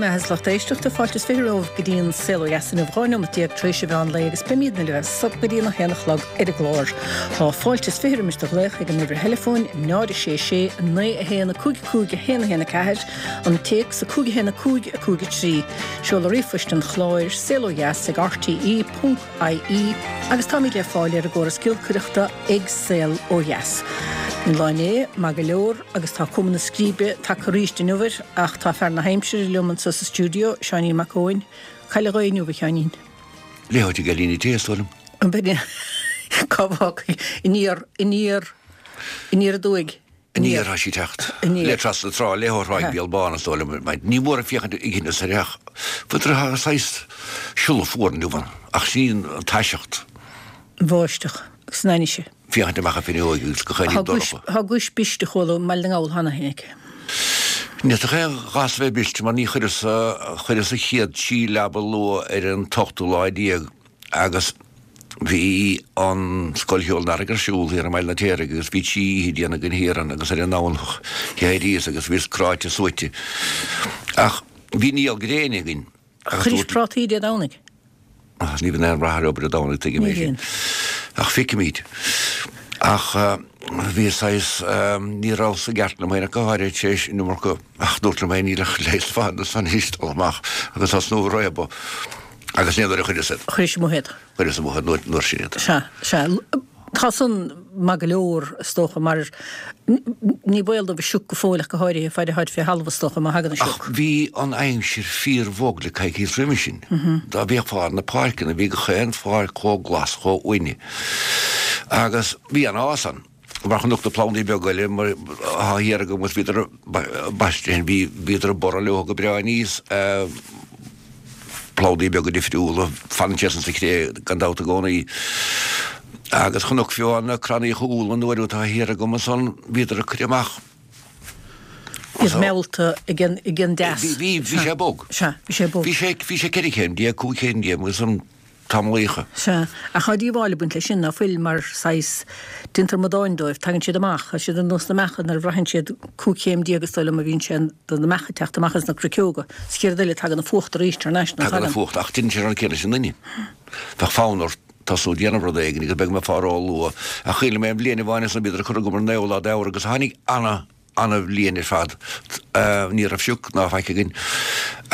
mbeatha is lucht éisteachta, fáilte is 20 romhaibh go dtí an Saol Ó Dheas inniu, 12 neomat tar éis an mheán lae agus beimidne libh as so go dtí an 1 a chlog ar an gclár. Tá fáilte is 20 roimis do ghlaoch ag an uimhir theileafóin 0 6 6 9 1 5 5 1 1 4, an téacs 5 1 5 5 3, seoladh ríomhphoist an chláir, saolodheas ag rte. ie agus táimid le fáil ar an gcóras giolcaireachta ag Saol Ó Dheas. Bhí an lá inné maith go leor agus tá cuma na scríbe tagtha arís inniu air ach tá fear na haimsire liom anseo sa stiúideo, Seáinín Mac Eoin. Cá bhfuil an ghaoth inniu, a Sheáinín? Léitheoir ag Eilín Té, is dóigh liom. An b'in é? Cá bhfágfaidh? Aniar, aniar, aniar aduaidh. Aniar tá sí ag teacht. Le trasna na trá, le ó Thráigh Béal Bán, is dóigh liom. Ní mór féachaint ag Inis Oirtheach. Fuair saghas siolla fuar inniu ann, ach sin an taiseacht. Bháisteach agus an ainnise. Féachaint amach an fhuinneoig agus gach aon ní dorcha. Tá guais briste chuala i mBaile na nGall cheana féin aici. Ní fhéadfadh aon ghas a bheith briste mar ní chuireas, chuireas an chéad sí leaba luath ar an t-ochtú lá déag. Agus bhí an Scoil Cheoil an Earraigh ar siúl thiar i mBaile an Fheirtéaraigh agus bhí trí oíche déanta againn thiar ann agus ar an nDomhnach d'éiríos agus bhíos cráite suaite. Ach bhí néal gréine againn agus Chuiris dúirt. prátaí Dé Domhnaigh? Ach ní bhíonn aon rath ar obair Dé Domhnaigh, tuigim Ní é sin. bhíonn. Ach feicimid. Ach bhí saghas, ní rabhas i gceart liom féin ach go háirithe tar éis an iomarca, ach dúrt liom féin níl ach leigheas fada san anois dul amach agus tosnú ag réabadh. Agus ní nuair a chuireas iad. Chuiris amuigh iad. Chuireas amuigh iad nuair sin iad. Sea, sea. Tá san maith go leor, is dócha, mar ní baol dóibh an sioc go fóill ach go háirithe, faid a tháid fé thalamh, is dócha, má thagann an sioc. Ach bhí an aimsir fíor-bhog le coicíos roimhe sin. Dá bhféachfá ar na páirceanna, bhí gach aon pháirc chomh glas, chomh uaine. Agus bhí an-fhás ann. Mar chonac na plandaí beaga eile mar atá thiar agam agus bhíodar baiste, bhí, bhíodar ag borradh leo go breá aníos, plandaí beaga difriúla, fanann siad san sa chré gan dabht i gcónaí. Agus chonac fiú na crannaíocha úlla an uair atá thiar agam ansan, bhíodar ag cur amach. Iad meallta ag an, ag an dteas. Bhí, bhí, bhí sé bog. Sea, bhí sé bog. Bhí sé, bhí sé 14 chéim, 15 chéim agus an. tamallaíocha. Sea, ach tá díobháil ag baint leis sin, ná fuil, mar saghas, déantar amadáin dóibh, tagann siad amach, tá siad ar nós na mbeacha nuair a bhraitheann siad 15 chéim is dóigh liom a bhíonn sé do na mbeacha ag teacht amach as na cruiceoga, sa chéad rud eile tagann an fuacht arís thar n-ais, ná tagann? Tagann an fuacht, ach déanann sé an rud céanna leis an nduine. Bheadh fonn ort tosnú ag déanamh rud éigin agus beidh mé fá ró-luath, ach chuimhnigh mé an bhliain amháin ansan bhíodar ag cur agam ar an naoú lá d'Fheabhra agus tháinig ana, ana-bhliain ar fad. Ní raibh sioc ná faic againn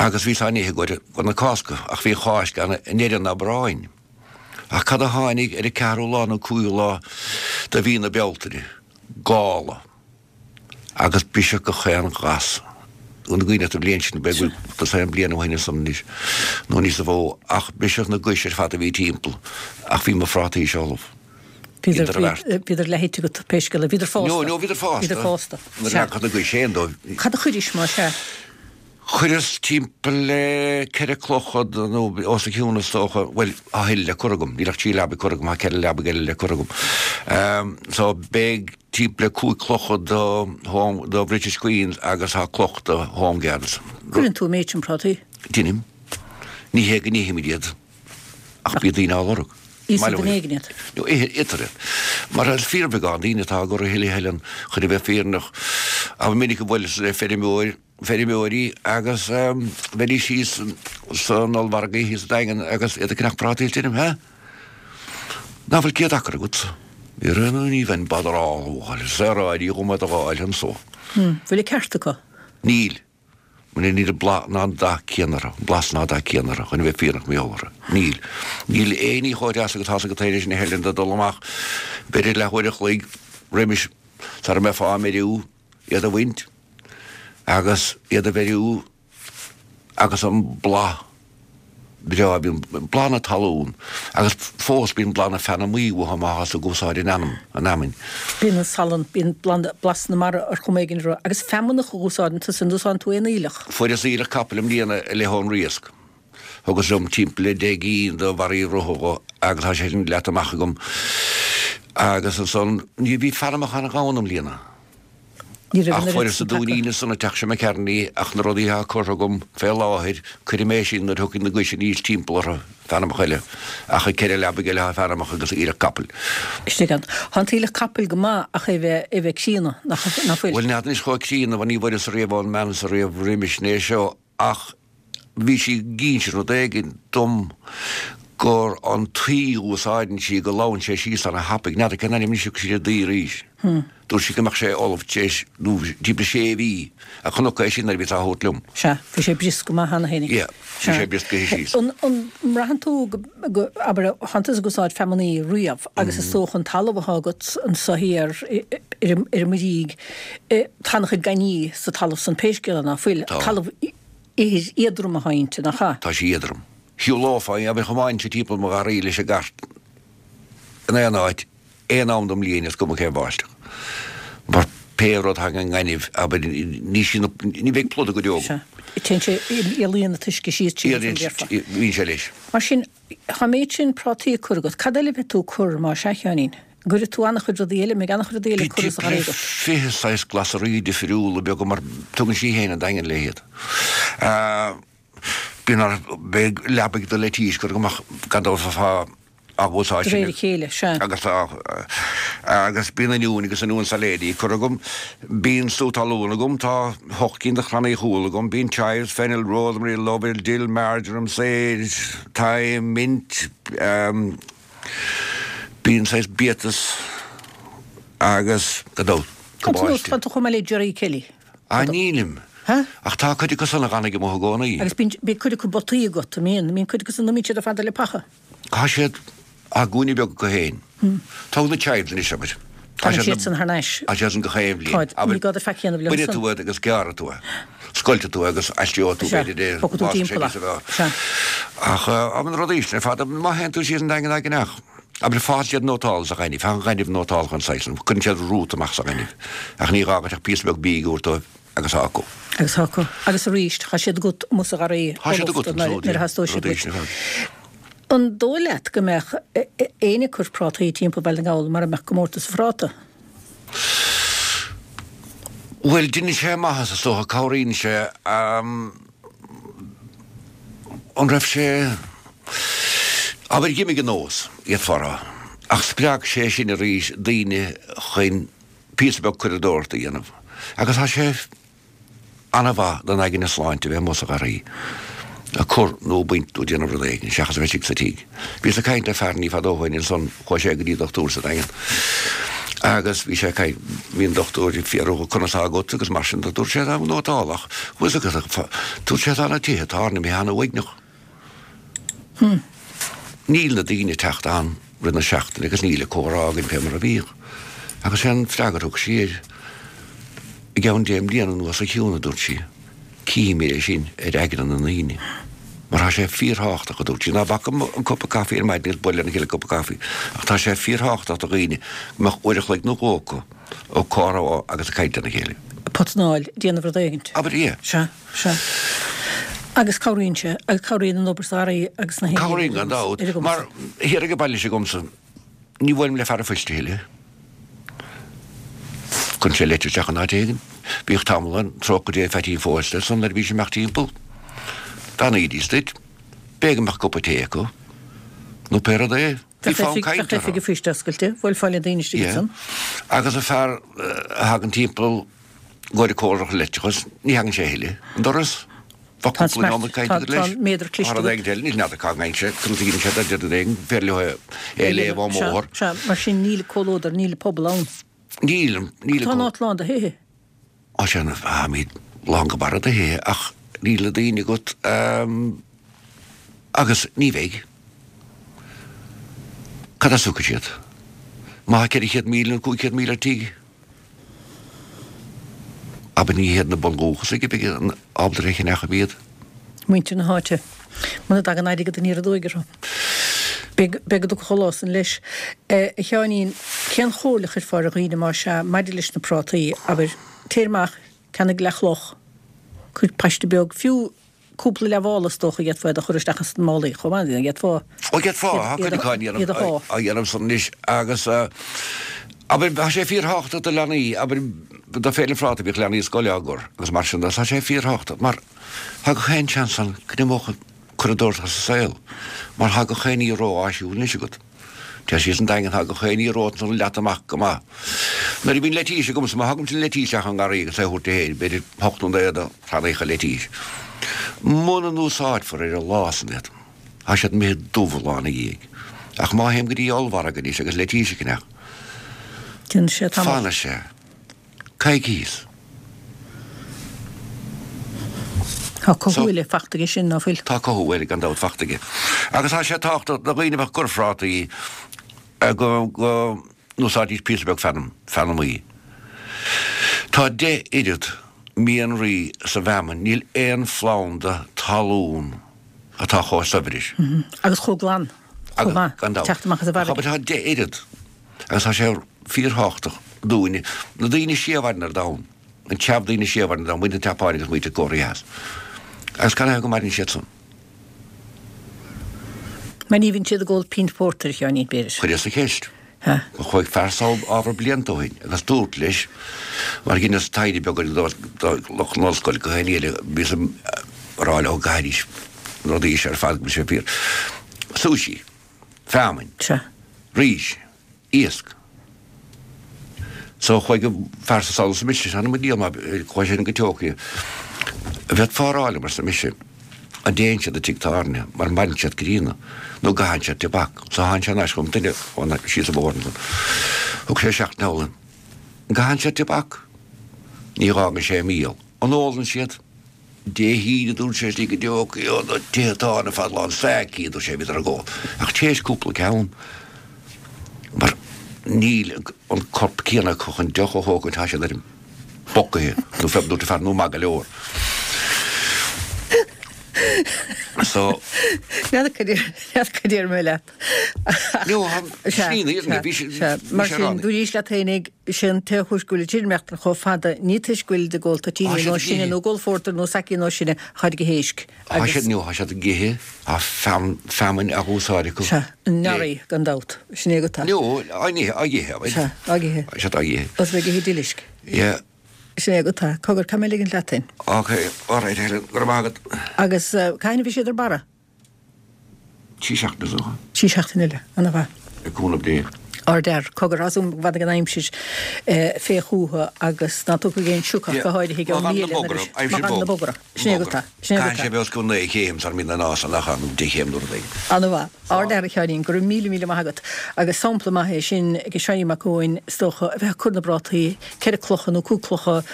agus bhíos á n-ithe i gcomhair na Cásca ach bhí an Cháisc ann i ndeireadh an Aibreáin. Ach cad a tháinig ar an ceathrú lá nó cúigiú lá de mhí na Bealtaine? Gála. Agus briseadh gach aon ghas. An gcuimhin leat an bhliain sin, b'fhéidir go bhfuil dosaen bliain ó shin ansan anois nó níosa mhó, ach briseadh na gais ar fad a bhí timpeall ach bhí mo phrátaí ullamh. Bhíodar leath-ite agat pé scéal é. Bhíodar fásta. No, no, bhíodar fásta. Bhíodar fásta. Nuair a leagfadh na gais féin dóibh. Cad a chuiris más ea? Chuireas timpeall le ceithre clochad nó os a chionn is dócha, bhuel, tá a thuilleadh le cur agam, níl ach trí leabaidh curtha agam, tá ceithre leabaidh eile le cur agam. So beidh timpeall le cúig clochad do Home, do British Queens agus tá cloch do Home Guards. Cuireann tú an méid sin prátaí? Deinim. Ní hé go n-ithimid iad. Ach bíonn daoine á lorg. Íosfaidh duine éigin iad. No, itear iad. Mar is fíorbheagán daoine atá á gcur a thuilleadh a thuilleann chun a bheith fírinneach. Ba mhinic a bhuaileas le feirmeoir, feirmeoirí agus bheidís thíos san ollmhargadh thíos sa Daingean agus iad ag ceannach prátaí is deirim, Hé? Ná fuil 100 acra agat? Ní raibh ní bheinn botherálach, saoráidí dhom iad a dh'fháil anso. Bhfuil an ceart acu? Níl. Níl an blas ná an dath céanna orthu, an blas ná dath céanna orthu, chun a bheith fírinneach mar gheall orthu. Níl. Níl aon ní chomh deas agus tá's agat leis na hEilean de dul amach b'fhéidir leathuair a chloig roimis sara mbeifeá á mbeiriú, iad a bhaint agus iad a bheiriú agus an blas breá, bíonn blas na talún agus fós bíonn blas na feanamaí uathu má thá tú ag úsáid an fheanam, an fheamainn. Bíonn an salann, bíonn blas na mara ar chuma éigin orthu. Agus feamnach a úsáideann tusa, an úsáideann tú aon aoileach? Fuaireas aoileach capaill i mbliana i leith ón Riasc. Thugas liom timpeall le 10 gcinn de bharraí rotha dho agus tá sé sin leata amach agam. Agus ansan, ní bhí feanamach an-ghann i mbliana. Ní raibh Ach an oiread fuaireas sin an tagtha. dúinín ansan an teach seo McCartney ach na rudaí atá curtha agam fé láthair, cuirfidh mé sin nuair a thiocfaidh na gais aníos timpeall orthu, feanamach eile. Ach ag ceithre leabaidh eile tá feanamach agus aoileach capaill. Istigh ann. Tá an t-aoileach capaill go maith ach é bheith, é bheith críonna, nach, nach bhfuil? Bhuel, n'fheadar anois chomh críonna, bhuel ní bhfuaireas ariamh ón mbean so riamh roimis né seo ach. Bhí sí ag inse rud éigin dom gur an tuí a úsáideann sí go lobhann sé síos ana thapaidh. N'fheadar cén ainm anois a thug sí ar an dtuí arís. Dúirt sí go mbeadh sé ullamh tar éis nó timpeall sé mhí a chonac é sin nuair a bhíos á thabhairt liom. Sea, bhí sé briosc go maith cheana féin. Yeah, bhí sé brioscaithe síos. An mbraitheann tú go, abair, thánn tusa ag úsáid feamainní riamh agus is dócha an talamh atá agat anso thiar ar an mBuirígh, tá an-chuid gainní sa talamh san pé scéal é ná fuil. Tá. Talamh ithir éadrom atá inti, nach ea? Tá sí éadrom. Shiúlófá, abair, thiomáinfinn timpeall mo gharraí leis an gcairt in aon áit, aon am den mbliain is cuma cén bháisteach. Mar pé rud thagann an gaineamh, abair, ní sí na, ní bheidh pluda go deo agam. Sea. Téann sé, éalaíonn an t-uisce síos tríd an déarfá. Bíonn sé leis. Mar sin, tá an méid sin prátaí á cur agat. Cad eile a bheidh tú ag cur más ea, a Sheáinín? An gcuirfidh tú an-chuid rudaí eile, an mbeidh an-chuid rudaí eile curtha sa gharraí agat? 20 saghas glasraí difriúla beaga mar tugann sí féin an Daingean léi iad. Bíonn ar, beidh leabaidh de leitís curtha agam ach gan dabht fá á úsáid De réir a chéile, sea. Agus tá, agus bíonn oinniúin agus oinniúin sailéidí curtha agam. Bíonn sú talún agam, tá hocht gcinn de chrannaí chúil agam, bíonn chives, fennel, rosemary, lovell, dill, marjoram, sage, thyme, mint, bíonn saghas biatas agus, gan dabht, cabáiste. Tá tú chomh maith le Gerry Kelly. Ah, nílim. Ha? Ach tá cuid acu san a dh'fhanfaidh amuigh i gcónaí. Agus bíonn, bíonn cuid acu bpotaí agat, an mbíonn? Bíonn cuid acu san, an mbíonn siad ar fad le paca? Tá siad, tá gúine beag acu féin. Tóg na chives anois, abair. Tá siad san thar n-ais. Tá siad san gach aon bhliain. Táid, ní gá duit faic a dhéanamh leo Bainfidh san. tú iad agus gearrfaidh tú é. Scoiltfidh tú é agus aistreoidh tú Sea, b'fhéidir é. bogfaidh tú timpeall é. Sea. Ach, abair na rudaí sin ar fad, má théann tú síos an Daingean ach, abair fásann siad nótálta sa ghaineamh, tá an ghaineamh nótálta an saghas san, cuireann siad rút amach sa ghaineamh. Ach ní gá duit ach píosa beag bídh a thabhairt dóibh agus tá acu. Agus tá acu. Agus arís, tá siad agat amuigh sa gharraí Tá siad agat ullamh nuair a theastóidh siad uait. An dóigh leat go mbeadh éinne ag cur prátaí timpeall Bhaile na nGall mara mbeadh comórtas an phráta? Bhuel, deineann sé maitheas is dócha, cabhraíonn sé. An raibh sé, abair d'imigh an nós, d'fhéadfá a rá, ach spreag sé sin arís daoine chun píosa beag curadóireachta a dhéanamh agus tá sé ana-mhaith don aigne sláinte a bheith amuigh sa gharraí ag cur nó ag baint nó ag déanamh rud éigin seachas a bheith istigh sa tigh. Bhíos ag caint le fear ní fada ó shoin ansan, chuaigh sé go dtí dochtúir sa Daingean agus bhí sé ag caint, bhí an dochtúir ag fiafraí dhe conas tá agat agus mar sin de, dúirt sé tá nótálach, bhfuil fhios agat, dúirt sé tá na tithe tábhairne imithe ana-uaigneach. Níl na daoine ag teacht ann rith na seachtaine agus níl an comhrá againn fé mar a bhíodh. Agus sé an freagra a thug sí air, I gceann deich mbliana anuas a Shiún, a dúirt sí, cífimid é sin ar aigne na ndaoine. Mar tá sé fíorthábhachtach, a dúirt sí, ná bac an cupa caife ar maidin agus bualadh lena chéile cupa caife, ach tá sé fíorthábhachtach do dhaoine go mbeadh uair a chloig nó dhó acu ag comhrá agus ag caint lena chéile. Potanáil, déanamh rud éigint. Abair, yeah. Sea. Sea. Agus cabhraíonn sé, agus cabhraíonn an obair sa gharraí agus na haon Cabhraíonn gan dabht, mar thiar ag an baile s'agamsa, ní bhuailim le fear an phoist a thuilleadh. Cuireann sé leitir isteach in áit éigin. Bhíodh tamall ann, trócaire Dé Pheaitín Phósta ansan nuair a bhí sé ag imeacht timpeall. Bheannaídís duit. B'fhéidir go mbeadh cupa tae acu, nó pé rud é. Bhí fonn cainte orthu. Bheadh oifig an phoist oscailte, bhuailfeá le daoine istigh ansan. Yeah. Agus an fear a thagann timpeall ag cóireáil leictreachas, ní thagann sé a thuilleadh an doras. Bheadh cúpla nóiméad cainte agat leis. Tá an méadar cliste agat. Rud éigin eile, níl n'fheadar cá dtagann sé, conas a dhéanann sé dá rud éigin, féidir leo é a léamh ón mbóthar. Sea, mar sin níl comhluadar, níl pobal ann. Níl, níl. Tá an áit lán de thithe. Á sea, táimid lán go barra de thithe ach níl na daoine agat agus ní bheidh. Cad as a thiocfaidh siad? Má tá 400,000 nó 500,000 ar tigh? Abair ní hiad na bundúchasaigh a bheidh ábalta a cheannach iad. Muintir na háite. Muna dtagann airgead aniar aduaidh orthu. Beidh go dtiocfaidh an lá san leis. A Sheáinín, cén chomhairle a chuirfeá ar dhaoine más ea maidir leis na prátaí, abair, téir amach, ceannaigh leathchloch, cuir paiste beag, fiú Cúpla leathmhála is dócha d'fhéadfá iad a chur isteach ins na málaí chomh maith, d'fhéadfá Ó d'fhéadfá, tá cuid acu á iad a shá. á dhéanamh san anois agus abair tá sé fíorthábhachtach do leanaí, abair do Féile an Phráta bhíodh leanaí scoile á gcur agus mar sin de, tá sé fíorthábhachtach mar tá gach aon seans ann go n-imeodh an curadóireacht as an saol mar tá gach aon ní ró-áisiúil anois agat. Téir síos an Daingean tá gach aon ní romhat ansan leata amach go maith. Nuair a bhíonn leitís agamsa, má thagaimse an leitís isteach ón ngarraí agus é a thabhairt di féin, b'fhéidir hocht nó naoi de chrannaíocha leitís. Muna n-úsáidfear ar an lá san iad, tá siad imithe dubh an lá ina dhiaidh. Ach má théim go dtí ollmhargadh anois agus leitís a cheannach, Déanfaidh sé tamall. fanfaidh sé coicíos. Tá cothú eile fachta aige sin, ná fuil? Tá cothú eile gan dabht fachta aige. Agus tá sé tábhachtach do dhaoine a bheadh ag cur phrátaí go n-úsáidfidís píosa beag feanm, feanamaí. Tá 10 oiread mianraí sa bhfeamainn, níl aon phlanda talún atá chomh saibhir leis. Agus chomh glan, chomh maith, Gan dabht. teacht amach as an bhfarraige. Tá 10 oiread agus tá sé fíorthábhachtach dúinne, na daoine is sia a mhaireann ar domhan, an tseamh daoine is sia a mhaireann ar domhan, muintir na Seapáine agus muintir Cóiré Theas. Agus canathaobh go maireann siad san? Mar ní bhíonn siad ag ól pínt phórtair, a Sheáinín, b'fhéidir. Chuireas an cheist. Chuaigh fear sall ábhar blianta ó shin agus dúrt leis, mar dheineas taighde beag ar do lucht na hollscoile go haon eile, bhíos ag rá leo go gcaithfidís na rudaí seo ar fad go bhfuil sé fíor. Sushi. Feamainn. Rís. Iasc. So chuaigh an fear san sall arsa mise, th'anam mo diabhal má chuaigh sé go Tokyo. An bhféadfá a rá liom, arsa mise, an dtéann siad i dtigh tábhairne mar maireann siad críonna nó an gcaitheann siad tobac. So tháinig sé thar n-ais chugam, duine ón síos an bóthar ansan. Thug sé isteach an t-eolas. An gcaitheann siad tobac? Ní dh'fhágann sé míol. An ólann siad? Dé hAoine, dúirt sé, istigh i dTokyo, na tithe tábhairne ar fad lán sake, dúirt sé, bhíodar ag ól. Ach théis cúpla ceann, mar níl an corp céanna acu chun deoch a thógaint, tá siad ar an bpocaithe, nó fé, dúirt an fear, nó maith go leor. So. N'fheadar cad déarfaidh mé leat. No, slí na fhírinne, bhí sé, Sea, mar sin, dúraís leat fhéinig, sé an t-aon chúis go bhfuil siad ag maireachtáil chomh fada, ní toisc go bhfuilid ag ól toitíní nó sine, nó ag ól phórtair nó sake nó sine, táid ag ithe éisc. Tá siad, no, tá siad ag ithe, tá feamainn á úsáid acu. Sea, an nori, gan dabht, sin é go tá. No, á n-ithe, á ithe, Sea, á ithe. Tá siad á ithe. Os ag ithe duilisc. Yeah. Sin é go tá. Cogar, caithfidh mé ligint leat féin. Ok, alright Helen, go raibh maith agat. Agus cathain a bhí siad ar barra? 3 seachtaine is dócha. 3 seachtaine eile. Ana mhaith. Le cúnamh Dé. Ardfhear. Cogar, tá súil agam go bhfanfaidh an aimsir fé chúthu agus ná tiocfaidh aon sioc go háirithe ag Má an míle nuair a Má fhanann na bogra. Sin é go tá. Sin é go tá. Caithfidh sé bheith os cionn 9 chéim sara mbíonn an fhás ann nó 10 chéim nó rud éigin. Ana mhaith. Ardfhear a Sheáinín, go raibh míle míle maith agat. Agus sampla maith é sin ag Seáinín Mac Eoin is dócha, a bheith ag cur na bprátaí, ceithre clocha nó cúig clocha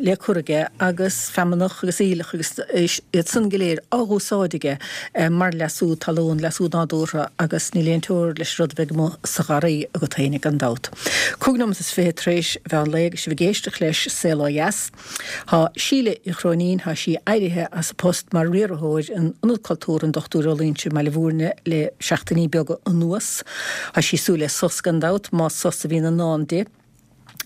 le cur aige agus feamnach agus aoileach agus iad san go léir á dh'úsáid aige mar leasú talún, leasú nádúrtha agus níl aon teora leis an rud a bheidh amuigh sa gharraí agat féinig gan dabht. Cúig nóimeat is fiche tar éis mheán lae agus sibh ag éisteacht leis Saol Ó Dheas. Tá Síle Uí Chróinín, tá sí éirithe as a post mar riarthóir in Ionad Cultúrtha an Dr Ó Loingsigh i mBaile Bhúirne le seachtainí beaga anuas. Tá sí ag súil le sos gan dabht, más sos a bhíonn i ndán di.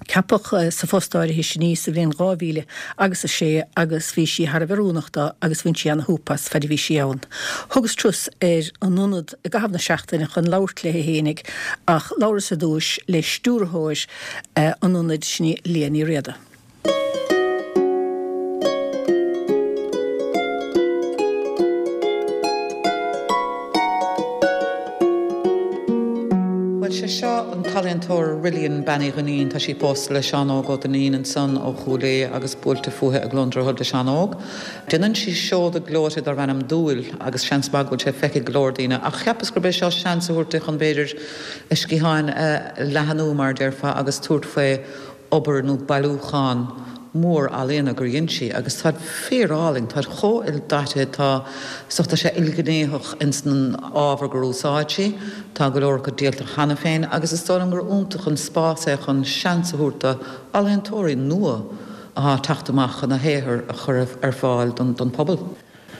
Ceapadh sa phost áirithe sin í sa bhliain 2000 agus 6 agus bhí sí thar a bheith oiriúnach dó agus bhain sí ana-shúp as faid a bhí sí ann. Thugas turas ar an ionad i gcaitheamh na seachtaine chun labhairt léi fhéinig ach labhras ar dtúis le stiúrthóir an ionaid, sin í Liadh Ní Riada. Bhuel, sé seo an t-ealaíontóir Rillian Bean Uí Dhuinnín. Tá sí pósta le Seán Óg Ó Duinnín ansan ó Chúil Aodha agus buailte fúithi i gCluain Droichead le Seán Óg. Déanann sí seoda gleoite darb ainm Dúil agus seans maith go bhfuil sé feicthe ag go leor daoine ach cheapas gurb é seo seans a thabhairt di chun b'fhéidir a sciatháin a leathanú mar a déarfá agus tabhairt faoi obair nó bailiúchán mór ealaíona gur dhein sí agus táid fíor-álainn, táid chomh ildaite, tá, so tá sé ilghnéitheach ins an ábhar gur úsáid sí, tá go leor acu díolta cheana féin agus is dóigh liom gur iontach an spás é chun seans a thabhairt do ealaíontóirí nua athá ag teacht amach chun a shaothar a chur ar fáil don phobal.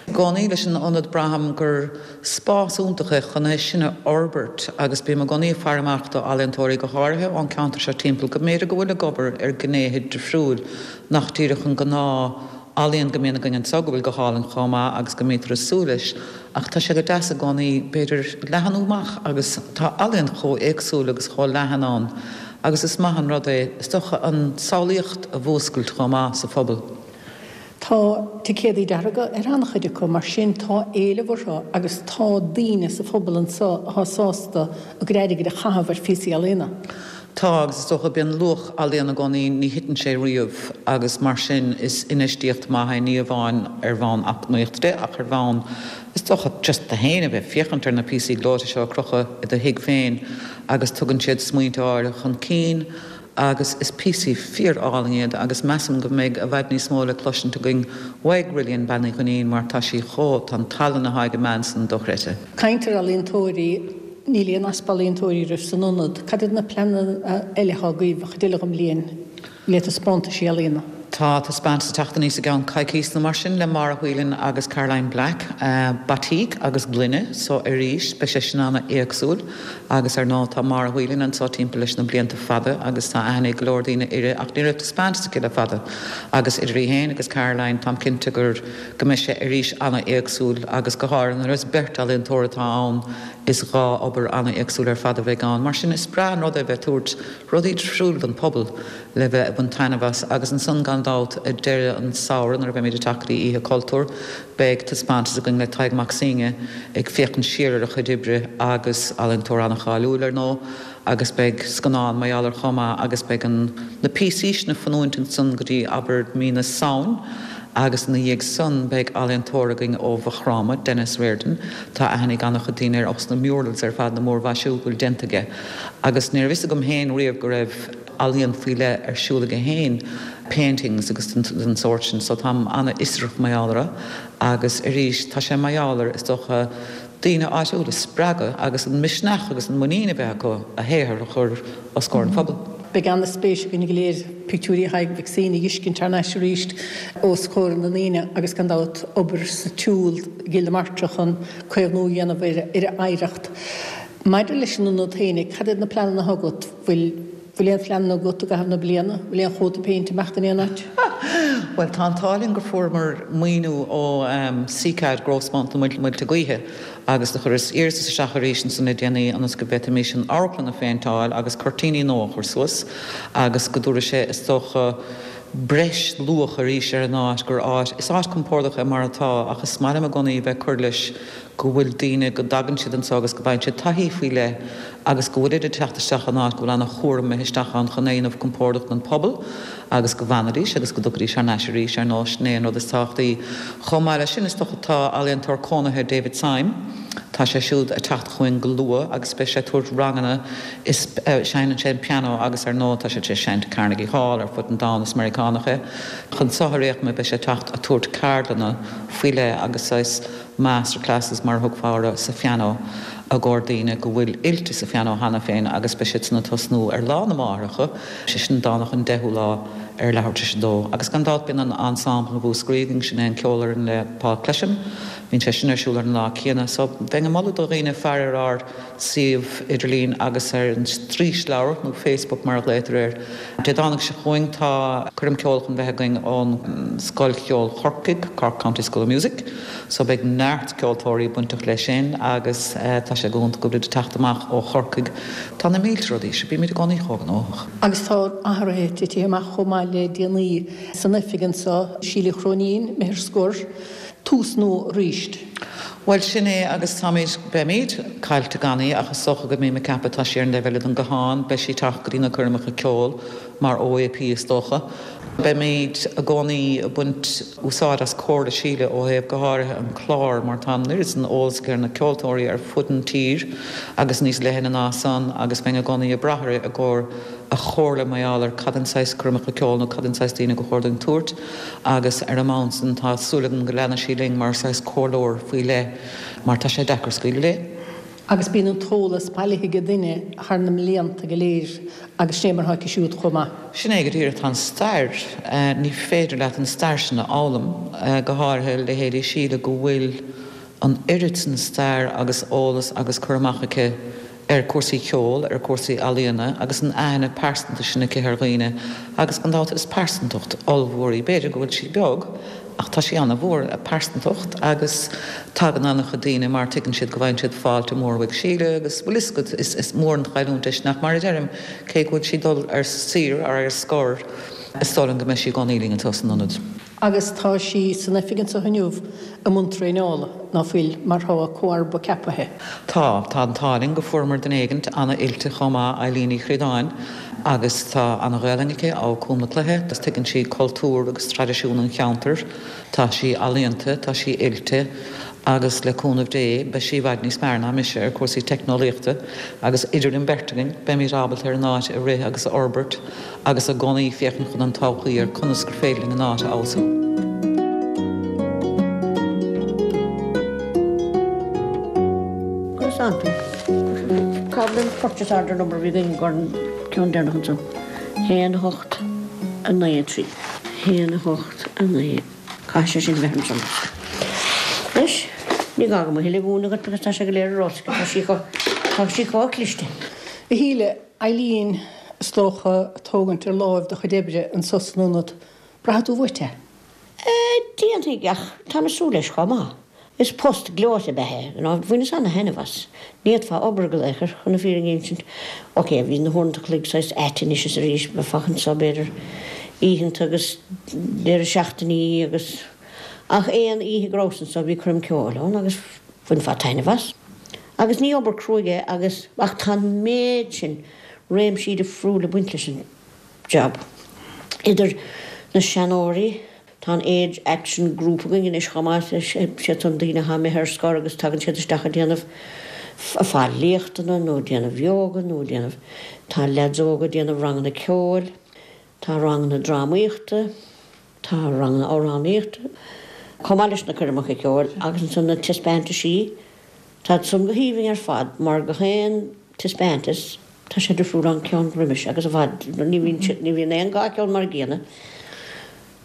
I gcónaí leis an ionad braithim gur spás iontach é chun é sin a fhorbairt agus bím i gcónaí ag faire amach do ealaíontóirí go háirithe ón ceantar seo timpeall go mb'fhéidir go bhfuil ag obair ar gnéithe difriúil nach díreach an gnáth ealaíon go mbíonn againn anseo go bhfuil go hálainn chomh maith agus go mbítear ag súil leis ach tá sé go deas i gcónaí b'fhéidir leathanú amach agus tá ealaíon chomh éagsúil agus chomh leathan ann agus is maith an rud é is dócha an tsamhlaíocht a mhúscailt chomh maith sa phobal. Tá ticéadaí dearga ar an-chuid acu, mar sin tá éileamh orthu agus tá daoine sa phobal anseo atá sásta a gcuid airgid a chaitheamh ar phíosaí ealaíona. Tá, agus is dócha, bíonn luach ealaíon i gcónaí, ní thiteann sé riamh agus mar sin is infheistíocht maith é, ní amháin ar bhonn eacnamaíochta de ach ar bhonn, is dócha, just tú féin a bheith ag féachaint ar na píosaí gleoite seo a crochadh i do thigh féin agus tugann siad smaointe áirithe chun cinn agus is píosaí fíor-álainn iad agus measaim go mbeidh i bhfad níos mó le cloisint againn uaidh Rillian Bean Uí Dhuinnín mar tá sí chomh, tá an tallann atá ag an mbean san dochreidte. Caint ar ealaíontóirí, níl aon easpa ealaíontóirí oraibh san ionad. Cad iad na pleananna eile atá agaibh an chuid eile den bhliain le taispeántaisí ealaíona? Tá taispeántas ag teacht aníos i gceann coicíos nó mar sin le Máire Whelan agus Caroline Black, batik agus gloine, so arís beidh sé sin ana-éagsúil agus ar ndóigh tá Máire Whelan anseo timpeall leis na blianta fada agus tá aithne ag go leor daoine uirthi ach ní raibh taispeántas aici le fada agus idir í féin agus Caroline táim cinnte gur go mbeidh sé arís ana-éagsúil agus go háirithe nuair is beirt ealaíontóir atá ann is dhá obair ana-éagsúil ar fad a bheidh ann mar sin is breá an rud é bheith ag tabhairt rudaí difriúil don phobal le bheith ag baint taitneamh as agus ansan gan dabht ag deireadh an samhradh nuair a bheimid ag teacht go dtí Oíche Cultúir beidh taispeántas againn le Tadhg Mac Suibhne ag féachaint siar ar a chuid oibre agus ealaíontóir an-cháiliúil ar ndóigh agus beidh scannán mar gheall air chomh maith agus beidh an na píosaí sin ag fanúint ansan go dtí abair mí na Samhain agus ina dhiaidh san beidh ealaíontóir againn ó Mhaigh Chromtha, Denis Riordan, tá aithne ag an-chuid daoine air ós na murals ar fad na múrmhaisiú go bhfuil déanta aige agus ní raibh fhios agam féin riamh go raibh ealaíon faoi leith ar siúl aige féin, paintings agus den sórt sin, so táim an-fhiosrach mar gheall orthu agus arís tá sé mar gheall ar, is dócha, daoine áitiúla a spreagadh agus an misneach agus an muinín a bheith acu a shaothar a chur os comhair an phobail. Beidh an-spéis againn go léir pictiúirí Thaidhg Mhic Suibhne a fheiscint thar n-ais arís os comhair na ndaoine agus gan dabht obair sa tsiúl i gCill na Martra chun caomhnú a dhéanamh ar a oidhreacht. Maidir leis an ionad féinig, cad iad na pleananna atá agat? Bhfuil Bhfuil aon phleananna agat i gcaitheamh na bliana? Bhfuil aon chóta péinte ag imeacht in aon áit? Bhuel, tá an t-ádh linn gur fuaireamar maoiniú ó CCAD Growthfund na Muilte Gaoithe agus do chuireas iarratas isteach arís ansan le déanaí ionas go bhféadfaimis an amharclann a phéinteáil agus cuirtíní nua a chur suas agus go dtabharfaidh sé, is dócha, breis luach arís ar an áit, gur áit, is áit compordach é mar atá ach is maith liom i gcónaí a bheith ag cur leis go bhfuil daoine, go dtagann siad anseo agus go bhfaigheann siad taithí faoi leith agus go bhfuilid ag teacht isteach in áit go bhfuil an-chúram imithe isteach ann chun é a dhéanamh compordach don phobal agus go bhfanfaidís agus go dtiocfaidís thar n-ais arís, ar ndóigh, sin é an rud is tábhachtaí. Chomh maith leis sin, is dócha, tá ealaíontóir cónaithe David Syme, tá sé siúd ag teacht chugainn go luath agus beidh sé ag tabhairt ranganna is seinneann sé an pianó agus ar ndóigh tá sé tar éis seinnt i Carnegie Hall ar fud an domhain, is Meiriceánach é. Chun seo ar aon chuma beidh sé ag teacht ag tabhairt ceardlanna faoi leith agus saghas master classes mar a thugfá orthu sa phianó i gcomhair daoine go bhfuil oilte sa phianó cheana féin agus beidh siad san ag tosnú ar Lá na Máithreacha, sé sin Domhnach an 10ú lá ar leathuair tar éis a dó. Agus gan dabht bíonn an ensemble i Mhúscraí againn, sin é an ceolfhoireann le Paul Clesham, bíonn sé sin ar siúl ar an lá céanna. So bheinn ag moladh do dhaoine faire ar ár suíomh idirlín agus ar an straoisleabhar, nó Facebook mar a ghlaotar air. Dé Domhnaigh seo chugainn tá coirm ceoil chun bheith againn ón Scoil Cheoil Chorcaigh, Cork County School of Music, so beidh neart ceoltóirí bainteach leis sin agus tá sé go hiontach go bhfuilid ag teacht amach ó Chorcaigh. Tá na mílte rudaí, sea bímid i gcónaí chomh gnóthach. Agus tá athruithe titithe amach chomh maith le déanaí san oifig anseo, Síle Uí Chróinín, imithe ar scor. Tús nua arís. Bhuel, sin é agus táimid, beimid, caillte gan í ach is dócha go mbím ag ceapadh tá sí ar an dtaobh eile den guthán, beidh sí ag teacht go dtí na coirmeacha ceoil mar OAP is dócha. Beimid i gcónaí ag baint úsáid as comhairle Síle ó thaobh go háirithe an clár mar tá an oiread san eolas aici ar na ceoltóirí ar fud an tír agus níos leithne ná san agus bheinn i gcónaí ag brath uirthi i gcomhair a chomhairle mar gheall ar cad an saghas coirmeacha ceoil nó cad an saghas daoine go chóir dúinn tabhairt Agus ar an mbonn san tá súil agam go leanfaidh sí linn mar saghas comhairleoir faoi leith mar tá sé deacair scaoileadh léi. Agus bíonn an t-eolas bailithe ag duine thar na mblianta go léir agus sin é mar atá aici siúd chomh maith. Sin é go díreach, tá an stair, ní féidir leat an stair sin a fhoghlaim, go háirithe leithéidí Síle go bhfuil an oiread san stair agus eolas agus cur amach aici ar chúrsaí ceoil, ar chúrsaí ealaíona agus an aithne pearsanta sin aici ar dhaoine agus gan dabht is pearsantacht ollmhór í. B'fhéidir go bhfuil sí beag ach tá sí an-mhór, a pearsantacht, agus tagann an-chuid daoine mar tuigeann siad go bhfaigheann siad fáilte mhór uaidh Síle agus bhfuil fhios agat is is mór an chailliúint é sin ach mar a deirim cé go bhfuil sí ag dul ar saoire ar ar scor is dóigh liom go mbeidh sí i gcónaí linn anseo san ionad. Agus tá sí san oifig anso inniu i mbun traenála, ná fuil, mar tá a comharba ceapaithe? Tá. Tá an t-ádh linn go fuaireamar duine éigint ana-oilte chomh maith, Eileen Uí Chríodáin, agus tá ana-Ghaelainn aici, ó Cúm na Cloiche, agus tuigeann sí cultúr agus traidisiún an cheantair. Tá sí ealaíonta, tá sí oilte agus le cúnamh Dé beidh sí i bhfad níos fearr ná mise ar chúrsaí teicneolaíochta agus idir an bheirt againn beimid ábalta ar an áit a rith agus a fhorbairt agus i gcónaí féachaint chun an todhchaí ar conas gur féidir linn an áit a fheabhsú. Conas tánn tú? Cá bhfuil an purchase order number a bhí againn don ceann deireanach ansan? 1 8 9 3. 1 8 9. Caithfidh sé sin bheith ansan. Anois, ní gá dom a thuilleadh a mhúineadh dhuit agus tá sé go léir ar eolas aici. Tá sí chomh, tá sí chomh cliste. A Shíle, Eileen, is dócha, ag tógaint ar láimh do chuid oibre anso san ionad. Braithfidh tú uait é? Déanfaidh, ach táim ag súil leis chomh maith. Is post gleoite ab ea é, you know, bhaineas ana-thaitneamh as. Ní fhéadfá obair go laochar, chun na fírinne a insint. Ok, bhí na huaireanta chloig saghas ait anois is arís, bheifeá anso b'fhéidir oícheanta agus deireadh seachtainí agus, ach aon oíche go rabhas anso bhí coirm ceoil ann agus bhainfeá taitneamh as. Agus ní obair cruaidh é agus, ach tá an méid sin réimsí difriúla ag baint leis an job. Idir na seanóirí, tá an Age Action Group againn anois chomh maith, siad san daoine atá imithe ar scor agus tagann siad isteach ag déanamh, ag fáil léachtanna nó ag déanamh yoga nó ag déanamh, tá leaids óga ag déanamh ranganna ceoil, tá ranganna drámaíochta, tá ranganna amhránaíochta, chomh maith leis na coirmeacha ceoil agus ansan na taispeántaisí, tá san go haoibhinn ar fad mar gach aon taispeántas, Tá sé difriúil ón ceann roimis agus i bhfad, ní bhíonn siad, ní bhíonn aon dá cheann mar a gcéanna.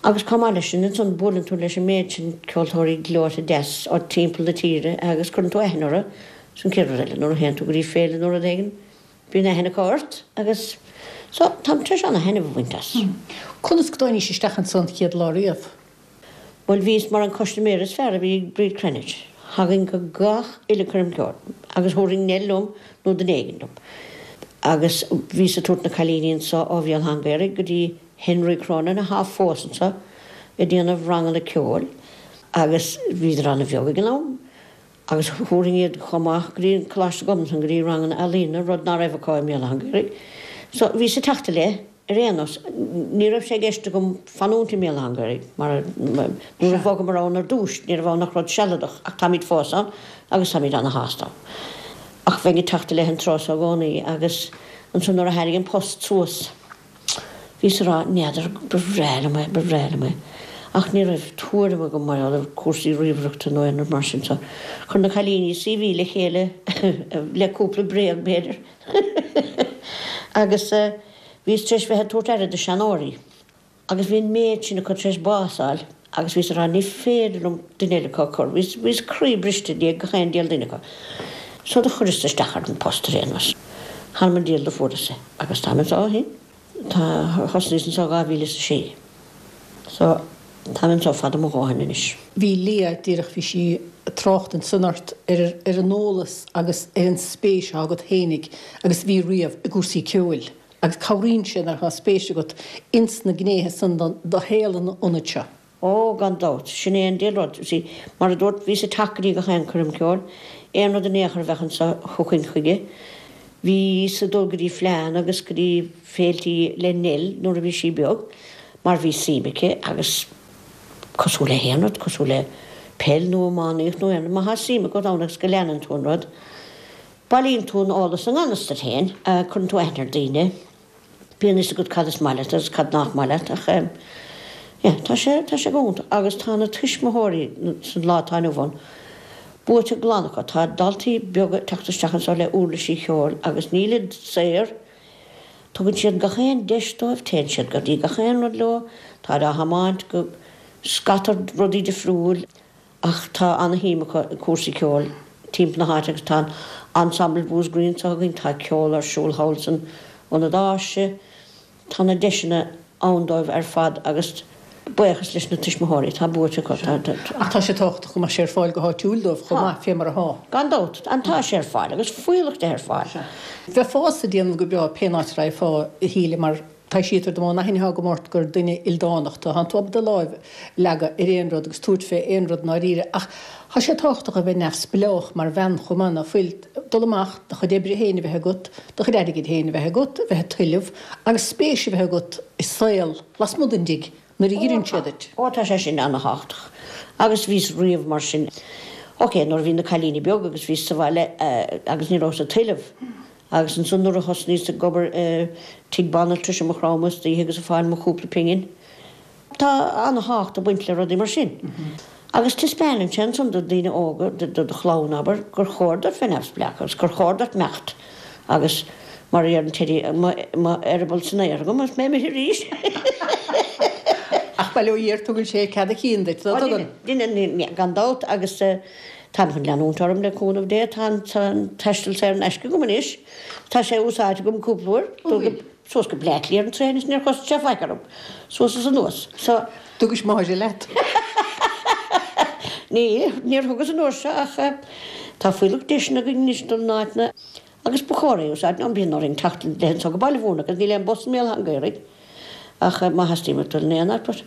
Agus chomh maith leis sin, ansan buaileann tú leis an méid sin ceoltóirí gleoite deas ó timpeall na tíre agus cuireann tú aithne orthu, sin an chéad rud eile, nuair a théann tú go dtí féile nó rud éigin, bíonn aithne acu ort agus so táim tar éis ana-thaitneamh a bhaint as. Conas go dtáinís isteach ansan chéad lá riamh? Bhuel, bhíos mar an custaiméir is fearr a bhí ag Bríd Cranitch. Thagainn go gach uile coirm ceoil agus thabharfainn Nell liom nó duine éigin liom. Agus bhíos ag tabhairt na cailíní anso ó Bhéal Átha an Ghaorthaidh go dtí Henry Cronin athá fós anso ag déanamh ranganna ceoil agus bhíodar ana-bheag ag an am agus thabharfainn iad chomh maith go dtí an Coláiste Ghobnatan go dtí ranganna ealaíne, rud ná raibh acu i mBéal Átha an Ghaorthaidh. So bhíos ag teacht i leith. Ar aon nós, ní raibh sé i gceist agam fanúint i mBéal Átha an Ghaorthaidh, mar nuair a bhogamar ann ar dtús, ní raibh ann ach rud sealadach, ach táimid fós ann agus táimid ana-shásta ann. Ach bheinn ag teacht i leith an tráth so i gcónaí agus ansan nuair a tháinig an post suas, bhíos ag rá, n'fheadar, ba bhreá liom é, ba bhreá liom é. Ach ní raibh tuairim agam mar gheall ar chúrsaí ríomhaireachta nó aon rud mar sin so chuir na cailíní CV le chéile le cúpla bréag b'fhéidir agus Bhíos tar éis bheith ag tabhairt aire do seanóirí agus bhí an méid sin acu tar éis bás a fháil agus bhíos ag rá ní féidir liom duine eile acu a chur. Bhíos, bhíos croí briste i ndiaidh gach aon diabhal duine acu. So do chuireas isteach ar an post ar aon nós. Th'anam 'on diabhal do fuaireas é agus táim anso ó shin. Tá, thosnaíos anso 2006. So, táim anso fada mo dhóthain anois. Bhí Leah, díreach, bhí sí ag trácht ansan ort ar, ar an eolas agus ar an spéis atá agat fhéinig agus a bhí riamh i gcúrsaí ceoil agus cabhraíonn sé nuair atá spéis agat ins na gnéithe san de shaol an ionaid seo. Ó, gan dabht, sin é an diabhal rud. You see, mar a dúrt, bhíos ag teacht go dtí gach aon coirm ceoil, aon rud in aon chor a bheadh anso, thiocfainn chuige. Bhíos ag dul go dtí fleánna agus go dtí féiltí le Nell nuair a bhí sí beag mar bhí suim aici agus cosúil le haon rud, cosúil le peil nó iománaíocht nó aon rud, má thá suim agat ann agus go leanann tú an rud, bailíonn tú an eolas i ngan fhios duit féin, cuireann tú aithne ar daoine, bíonn fhios agat cad is maith leat agus cad nach maith leat ach yeah, tá sé, tá sé go hiontach agus tá na tuismitheoirí san lá atá inniu ann buaite glan acu, tá daltaí beaga ag teacht isteach anseo le uirlisí cheoil agus nílid saor, Tugann siad gach aon deis dóibh, téann siad go dtí gach aon rud leo, táid á thiomáint go scata rudaí difriúil ach tá ana-shuim acu i cúrsaí ceoil timpeall na háite agus tá an Ensemble Mhúscraí anseo againn, tá ceol ar siúl thall san Ionad Áise, tá na deiseanna ann dóibh ar fad agus buíochas leis na tuismitheoirí, tá buaite acu. Ach tá sé tábhachtach go mbeadh sé ar fáil go háitiúil dóibh chomh maith, fé mar atá. Gan dabht, and tá sé ar fáil agus fuíollach de ar fáil. Bheifeása ag déanamh go breá pén áit a raghfá, a Shíle, mar. Taibhsítear dom ón aithne atá agam ort gur duine ildánach tú. Tánn tú ábalta do láimh a leagadh ar aon rud agus tabhairt fé aon rud i ndáiríre. Ach tá sé tábhachtach a bheith neamhspleách mar bhean chomh maith, ná fuil? Dul amach, do chuid oibre féin a bheith agat, do chuid airgid féin a bheith agat, a bheith ag tuilleamh agus spéis a bheith agat i saol lasmuigh den dtigh nuair a dh'iarrann siad duit. Ó tá sé sin ana-thábhachtach. Agus bhíos riamh mar sin. Ok, nuair a bhí na cailíní beag agus bhíos sa bhaile agus ní rabhas ag tuilleamh. Agus ansan nuair a thosnaíos ag obair i tigh banaltrais i Maigh Chromtha istoíche agus ag fáil mo chúpla pingin. Tá ana-thábhacht ag baint le rudaí mar sin. Agus taispeánann sé ansan do daoine óga, do do chlann, abair, gur chóir duit bheith neamhspleách agus gur chóir duit imeacht agus mar a deireann Teddy, mo eireaball san aer agam agus mé imithe arís. Ach bail ó Dhia air, tugann sé cead a chinn duit, ná tugann? Deineann, gan dabht, agus táim chun leanúint orm le cúnamh Dé, tá an taisteal saor in aisce agam anois, tá sé úsáidte agam cúpla uair. An bhfuil? Suas go Bleá Cliath ar an traein is níor chosain sé faic orm. Suas is anuas. So. Thugais Máire leat? Ní, níor thugas an uair seo ach tá fuílleach deiseanna againn anois dul in áiteanna agus ba chóir é a úsáid. Nó bíonn orainn teacht le anso go Baile Mhúirne agus níl aon bus i mBéal Átha an Ghaorthaidh ach má theastaíonn uait dul in aon áit but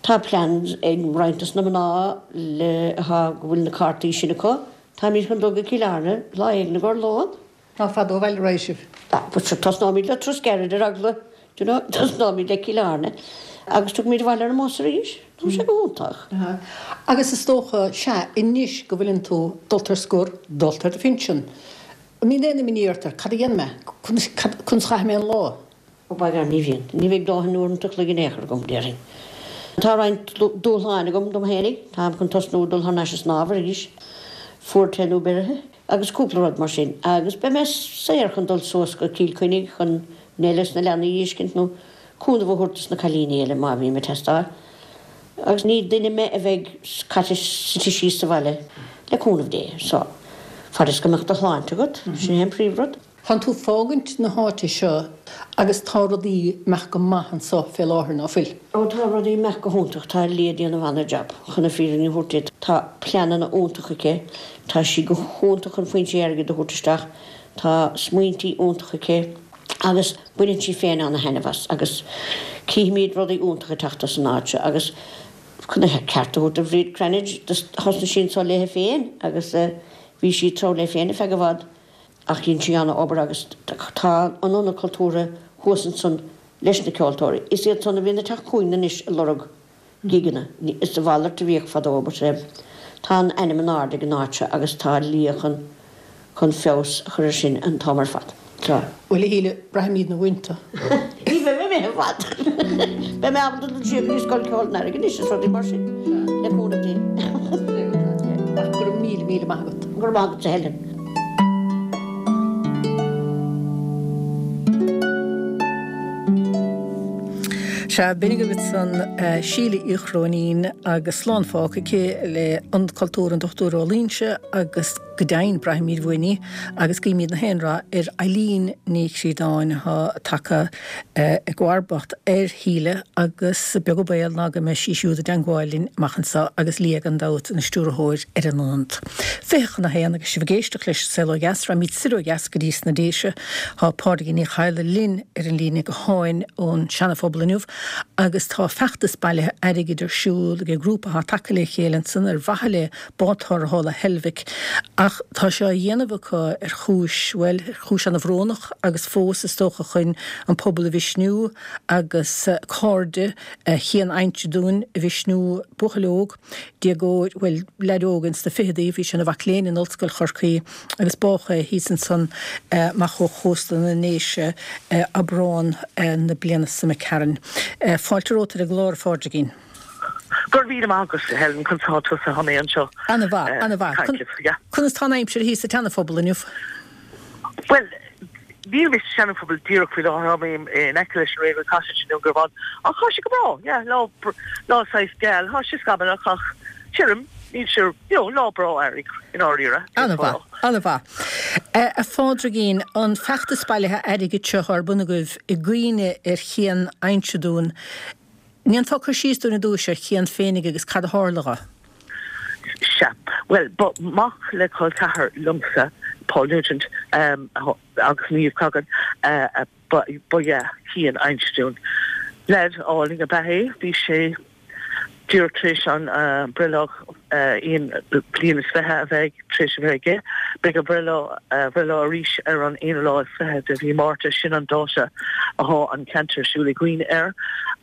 tá plans ag roinnt dos na mná le atá go bhfuil na cártaí sin acu. Táimid chun dul go Cill Airne lá éigin i gcomhair lón. Ná fada ó bhaile a raghaidh sibh. But sure, tosnóimid le turas gairid ar eagla, do you know, tosnóimid le Cill Airne agus tiocfaimid abhaile ar an mbus arís. Tá sé go hiontach. Agus is dócha, sea, anois go bhfuileann tú dulta ar scor, dulta ar do phinsean, an mbíonn aon imní ort ar cad a dhéanfaidh mé, conas, conas a chaithfidh mé an lá? Ó b'fhearr ní bhíonn. Ní bheidh dóthain uaireanta a chloig in aon chor agam, déarfainn. Tá roinnt dúshláin agam dom fhéinig. Táim chun tosnú ag dul thar n-ais ag snámh arís. Fuar te nó beirithe. Agus cúpla rud mar sin. Agus beidh mé saor chun dul suas go Cill Chainnigh chun Nell is na leanaí a fheiscint nó cúnamh a thabhairt dos na cailíní eile má bhím ag teastáil. Agus ní duine mé a bheidh caite suite síos sa bhaile, le cúnamh Dé. So, fad is go mbeadh do shláinte agat, sin é an príomhrud. Tánn tú fágaint na háite seo agus tá rudaí imeacht go maith anso fé láthair, ná fuil? Ó tá rudaí imeacht go hiontach, tá Leah ag déanamh ana-jab, chun na fírinne a thabhairt duit. Tá pleananna iontacha aici, tá sí go hiontach chun foinsí airgid a thabhairt isteach, tá smaointí iontacha aici agus baineann sí féin ana-thaitneamh as agus cífimid rudaí iontacha ag teacht as an áit seo agus chun a ceart a thabhairt do Bhríd Cranitch, thosnaigh sí anso léithe féin agus bhí sí ag treabhadh léi féin ar feadh i bhfad. Ach dhein sí ana-obair agus tá an Ionad Cultúrtha thuas ansan leis na ceoltóirí. Is iad san a bhíonn ag teacht chugainn anois ag lorg gigeanna. Is a mhalairt a bhíodh fadó but tá an ainm in airde ag an áit seo agus tá Leah chun chun feabhas a chur ar sin an t-am ar fad. Tá. Bhuel a Shíle, braithimidne uainn tú. Ní bheidh mé imithe i bhfad. Beidh mé ábalta dul siar go dtí Scoil Ceoil an Earraigh anois is rudaí mar sin, le cúnamh Dé. Ach go raibh míle, míle maith agat. Go raibh maith agatsa Helen. Sea, b'in agaibh ansan Síle Uí Chróinín agus slán fágtha aici le Ionad Cultúrtha an Dochtúir Ó Loingsigh agus Go deimhin, braithimid uainn í agus guímid na haon rath ar Eileen Ní Chríodáin atá tagtha i gcomharbacht ar Shíle agus beag an baol ná go mbeidh sí siúd i dteangmháil linn amach anseo agus Leah gan dabht ina stiúrthóir ar an ionad. 12:40 agus sibh ag éisteacht leis An Saol Ó Dheas, raghaimid soir ó dheas go dtí sna Déise. Tá Pádraigín Ní Chadhla linn ar an líne gutháin ón Seana-Phobal inniu agus tá feachtas bailithe airgid ar siúl ag grúpa atá tagtha le chéile ansan ar mhaithe le bád tarrthála Heilbhic, ach tá sé á dhéanamh acu ar chúis, bhuel, ar chúis ana-bhrónach agus fós, is dócha, chun an pobal a mhisniú agus cairde Chian Aimseadúin a mhisniú, buachaill óg, déagóir, bhuel, leaid óg ins na ficheadaí, bhí sé ina mhac léinn in Ollscoil Chorcaí agus bádh é thíos ansan amach ó chósta na nDéise Aibreán na bliana seo imigh tharainn. Fáilte romhat ar an gclár, a Phádraigín. Go raibh míle maith agat, a Helen, conas tá tusa honey anseo? Ana-mhaith, ana-mhaith. Conas tá an aimsir thíos sa tSeana-Phobal inniu? Bhuel, níl mé sa Seana-Phobal díreach faoi láthair, tá mé in aice leis an Railway Cottage i nDún Garbhán, ach tá sé go breá, yeah, lá, lá saghas geal, tá sé scamallach ach tirim, níl sé, you know, lá breá earraigh i ndáiríre. Ana-mhaith, ana-mhaith. A Phádraigín, an feachtas bailithe airgid seo ar bun agaibh i gcuimhne ar Chian Aimseadún, ndéanfá cur síos dúinn ar dtúis ar Chian féinig agus cad a tharla dho? Sea. Bhuel, ba mhac le col ceathar liomsa, Paul Nugent. Agus Niamh Cogan ba ea Cian a insint dúinn. Leaid álainn ab ea é. Bhí sé díreach tar éis an breithlá aon bliain is 20 a bheith tar éis a bheith aige. Beidh a bhreithlá bhreithlá arís ar an aonú lá is 20 de mhí Márta. Sin an dáta athá an ceant ar siúl i gcuimhne air.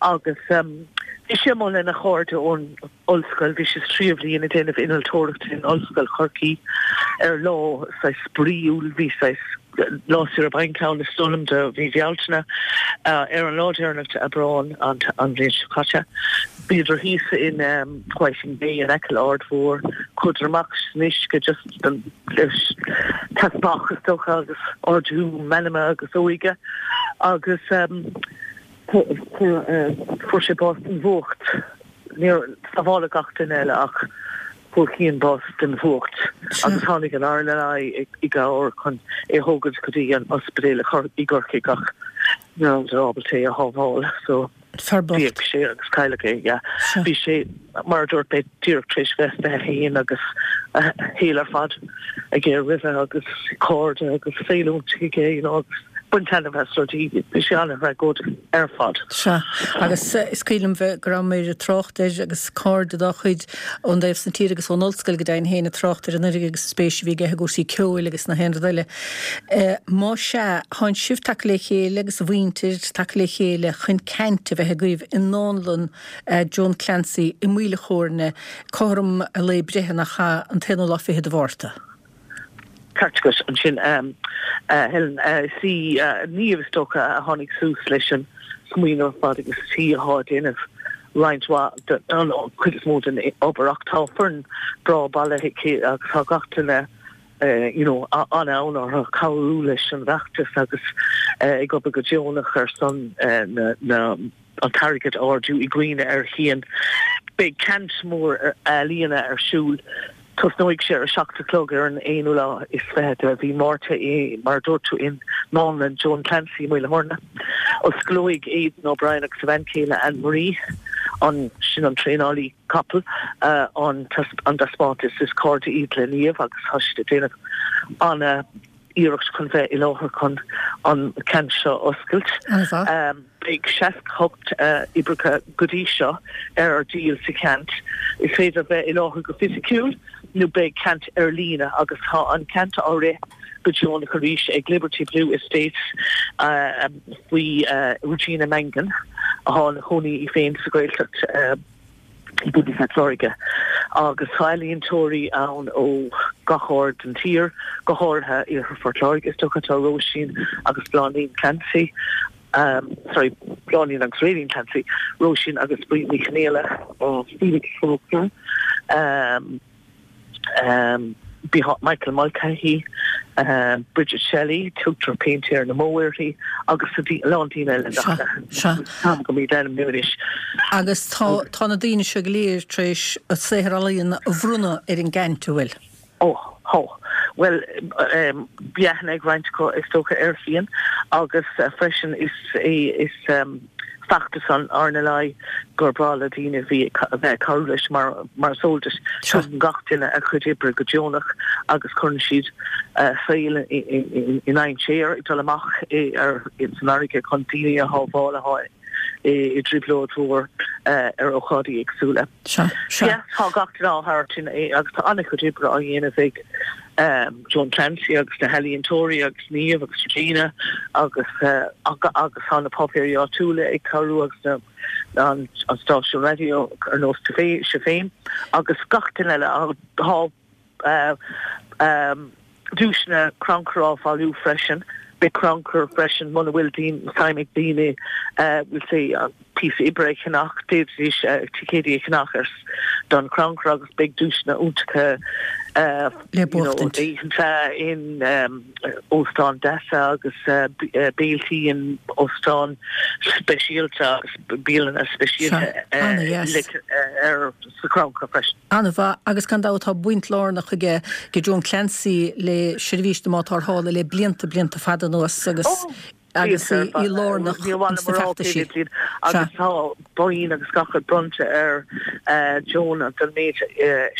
Agus bhí sé amuigh lena chairde ón ollscoil, bhí sé sa tríú bhliain ag déanamh innealtóireachta in Ollscoil Chorcaí ar lá saghas spraíúil, bhí saghas lá saoire bainc ann is dóigh liom do mhí Bhealtaine. Ar an lá deireanach d'Aibreán an bhliain seo caite, bhíodar thíos in Whiting Bay in aice le Aird Mhór, chuadar amach san uisce just don teaspach is dócha agus ardú meanma agus óige agus fuair sé bás den bhfuacht. Níor sábháladh gach duine eile ach fuair Cian bás den bhfuacht agus tháinig an RNLI i gcabhair chun é a thógaint go dtí an ospidéal i gCorcaigh ach ní rabhadar ábalta é a shábháil so d'éag sé agus cailleadh é. Yeah. Bhí sé, mar a dúirt mé, díreach tar éis bheith 21 agus a shaol ar fad aige roimhe agus cairde agus saol iontach aige you know agus baint taitneamh as rudaí. Bhí sé an-thragóideach ar fad. Sea, agus is cuimhin liom bheith, go rabhamar ag trácht air agus cairde dá chuid ón dtaobh san tír agus ón ollscoil go deimhin féin ag trácht air anuraidh agus an spéis a bhí aige i gcúrsaí ceoil agus na haon rud eile. Má sea, thánn sibh tagtha le chéile agus a mhuintir tagtha le chéile chun ceant a bheith agaibh i nDánlann Joan Clancy i Maoil a' Chóirne cothrom a lae breithe nach ea, an t-aonú lá fichead de Mhárta. Ceart agat ansin, a Helen. Is í Niamh, is dócha, a tháinig suas leis an smaoineamh ar fad agus is í atá ag déanamh roinnt mhaith den, an chuid is mó den obair ach tá foireann breá bailithe aici agus tá gach duine you know an-fhonn orthu cabhrú leis an bhfeachtas agus ag obair go deonach ar son na na an t-airgead a ardú i gcuimhne ar Chian. Beidh ceant mór ealaíona ar siúl. Tosnóidh sé ar a 7 a chlog ar an aonú lá is 20 de mhí Márta i, mar a dúirt tú, i nDánlann Joan Clancy i Maoil a' Chóirne. Osclóidh Aidan O'Brien agus a bhean chéile Anne Marie, an, sin an traenálaí capall, an taispeántas. Is cairde iad le Niamh agus tá siad ag déanamh ana iarracht chun bheith i láthair chun an ceant seo a oscailt. Beidh 68 oibreacha go dtí seo ar díol sa cheant. Is féidir bheith i láthair go fisiciúil nó beidh ceant ar líne agus tá an ceant á rith go deonach arís ag Liberty Blue Estates faoi Regina Mangan atá ina cónaí í féin sa Ghaeltacht. i gContae Phort Láirge agus tá ealaíontóirí ann ó gach aird den tír, go háirithe Iarthar Phort Láirge. Is dócha tá Róisín agus Bláithín Clancy, sorry, Bláithín agus Rayleen Clancy, Róisín agus Bríd Ní Chonghaile, Felix Faulkner, Michael Mulcahy, Bridget Shelley, tugtar Péintéir na mBó uirthi, agus a lán daoine eile nach táim go míd ainmniú anois. Agus tá tá na daoine seo go léir tar éis a saothar ealaíona a bhronnadh ar an gceant, an bhfuil? Ó, tá. Bhuel, bhí aithne ag roinnt acu is dócha ar Chian agus freisin is é is feachtas an RNLI gur breá le daoine a bhí a bheith ag cabhrú leis mar mar is eol duit. Tugann gach duine a chuid oibre go deonach agus cuireann siad a saol i ndainséar ag dul amach ar san fharraige chun daoine a shábháil atá i dtrioblóid mhór ar ócáidí éagsúla. Sea, sea. Tá gach duine á thabhairt in agus tá an-chuid oibre á dhéanamh ag Joan Clancy agus na healaíontóirí agus Niamh agus Regina agus agus tá na páipéirí áitiúla ag cabhrú agus na an stáisiún raidió ar nós tú sibh féin agus gach duine eile. Tá duaiseanna crannchuir á bhailiú freisin. Beidh crannchur freisin muna bhfuil suim ag daoine we'll say píosa oibre a cheannach, d'fhéadfaidís ticéidí a cheannach ar don chrannchur agus beidh duaiseanna iontacha le buachtaint. oícheanta in óstáin deasa agus béiltí in óstáin speisialta agus bialanna speisialta ar sa chrannchur freisin. An-mhaith, agus gan dabht tá baint lárnach aige Joan Clancy le seirbhís na mBád Tarrthála le blianta, blianta fada anuas agus. Agus í lárnach ins na feachtaisí. Agus tá boinn agus gach rud bronnta ar Joan don méid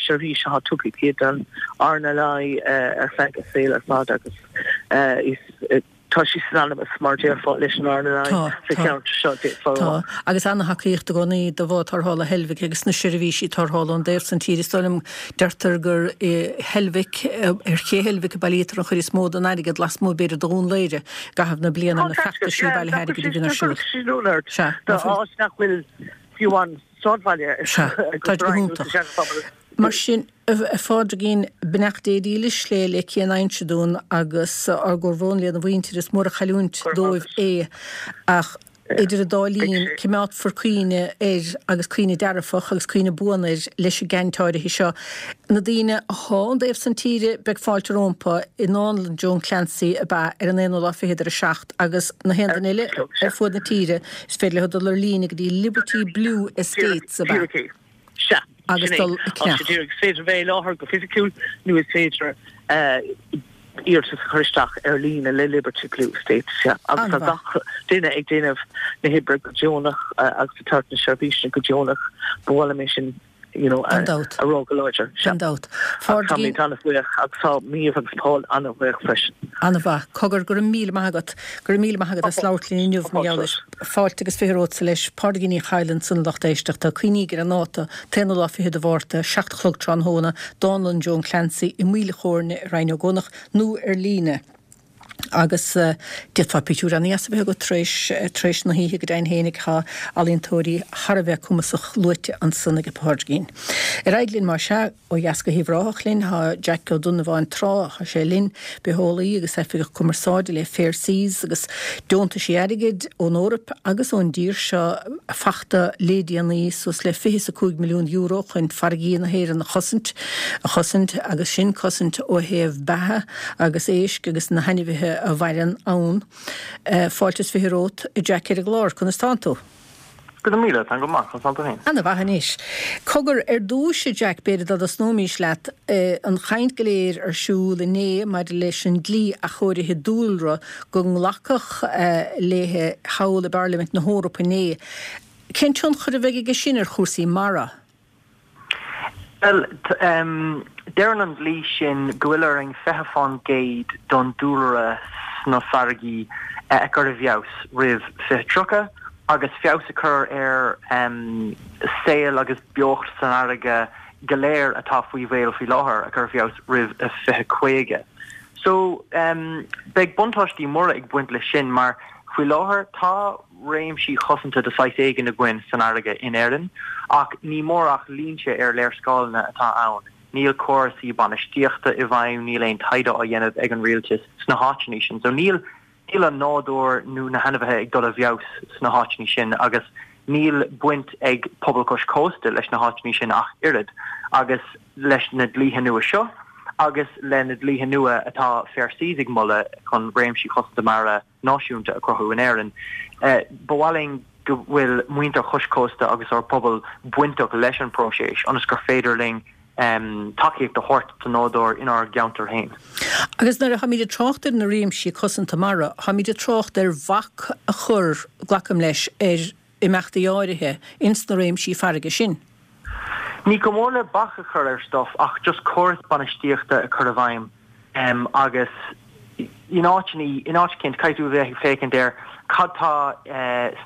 seirbhís atá tugtha aici don RNLI ar feadh a saoil ar fad agus is Tá sí synonymous, mar déarfá, leis an RNLI sa cheantar seo, déarfá. Tá, agus ana-thacaíocht i gcónaí do bhád tarrthála Heilbhic agus na seirbhísí tarrthála ón dtaobh san tíre. Is dóigh liom, deirtear gur i Heilbhic, ar ché Heilbhic a bailítear an chuid is mó den airgead, lasmuigh b'fhéidir de Dhún Laoghaire, i gcaitheamh na bliana, na feachtaisí bailithe airgid a bhíonn ar siúl. Sea, áit nach bhfuil fiú amháin sráidbhaile Sea, tá go hiontach. Mar sin. A Phádraigín, beannacht Dé dílis le le Cian Uinseann agus ár gcomhbhrón lena mhuintir, is mór an chailliúint dóibh é ach idir an dá linn coimeádfar cuimhne air agus cuimhne dearfach agus cuimhne buan air leis an gceant áirithe seo. Na daoine athá ón dtaobh san tíre beidh fáilte rómpa i nDánlann Joan Clancy ab ea ar an aonú lá fichead ar a 7 agus na haon duine eile ar fuaid na tíre is féidir leo dul ar líne go dtí Liberty Blue Estates ab ea? Sea, agus sin é. dul ag Tá sé ceannach. díreach, is féidir bheith i láthair go fisiciúil nó is féidir iarratas a chur isteach ar líne le Liberty Blue Estates, sea. Agus tá An-mhaith. gach duine ag déanamh na hoibre go deonach agus ag tabhairt na seirbhíse go deonach. Ba mhaith liom é sin, you know, Gan dabht. a rá go láidir. Sea. Gan dabht. Agus Phádraigín. táimid an-bhuíoch agus tá Méabh agus Paul an-bhuíoch freisin. An-mhaith. Cogar, go raibh míle maith agat. Go raibh míle maith agat as labhairt linn inniu mar gheall air. Fáilte agus 20 romhatsa leis. Pádraigín Ní Chadhla ansan a lucht éisteachta. Cuimhnígí ar an ndáta, t-aonú lá fichead de Mhárta, 7 a chlog tráthnóna, Dánlann Joan Clancy i Maoil a' Chóirne i Rinn Ó gCuanach nó ar líne. Agus d'fhéadfá pictiúr ana-dheas a bheith agat tar éis tar éis na hoíche go deimhin fhéinig. Tá ealaíontóirí thar a bheith cumasach luaite ansan ag Pádraigín. Ar aghaidh linn más ea. Ó dheas go hUíbh Ráthach linn, tá Jack Ó Donnabháin Trá, tá sé linn, bitheolaí agus oifigeach cumarsáide le Fair Seas agus deontaisí airgid ón Eoraip agus ón dtír seo fachta lé déanaí suas le €25 milliún chun farraigí na hÉireann a chosaint, a chosaint agus sin cosaint ó thaobh beatha agus éisc agus na hainmhithe a mhaireann ann. Fáilte is 20 romhat, a Jack ar an gclár, conas tánn tú? Go raibh míle, táim go maith, conas tánn tú féin? Ana mhaith anois. Cogar, ar dtúis, a Jack, b'fhéidir dá dtosnóimís leat, an chaint go léir ar siúl inné maidir leis an dlí athchóirithe dúlra go nglacadh léi thall i bParlaimint na hEorpa inné. Cén tionchar a bheidh aige sin ar chúrsaí mara? Bhuel, deireann an dlí sin go bhfuil orainn 20% don dúlra sna farraigí a chur i bhfeabhas roimh 2030 agus feabhas a chur ar saol agus beocht san fharraige go léir atá faoi bhaol faoi láthair a chur i bhfeabhas roimh 2050. So, beidh buntáistí móra ag baint leis sin mar faoi láthair tá réimsí cosanta de saghas éigin againn san fharraige in Éirinn, ach ní mór ach línte ar léarscáileanna atá ann. Níl córasaí bainistíochta i bhfeidhm, níl aon taighde á dhéanamh ag an rialtas sna háiteanna sin. So níl níl an nádúr nó na hainmhithe ag dul i bhfeabhas sna háiteanna sin agus níl baint ag pobal cois cósta leis na háiteanna sin ach oiread. Agus leis na dlíthe nua seo agus le na dlíthe nua atá Fair Seas ag moladh chun réimsí cosanta mara náisiúnta a chruthú in Éirinn. Ba mhaith linn go bhfuil muintir chois cósta agus ár bpobal bainteach leis an bpróiseas ionas gur féidir linn tacaíocht a thabhairt don nádúr inár gceantar féin. Agus nuair a tháimid ag trácht ar na réimsí cosanta mara, tháimid ag trácht ar bhac a chur, glacaim leis, ar imeachtaí áirithe ins na réimsí farraige sin. Ní chomh mór le bac a chur ar stuff ach just córas bainistíochta a chur i bhfeidhm agus in áiteanna, in áit eicínt, caithfidh tú a bheith ag féachaint ar cad tá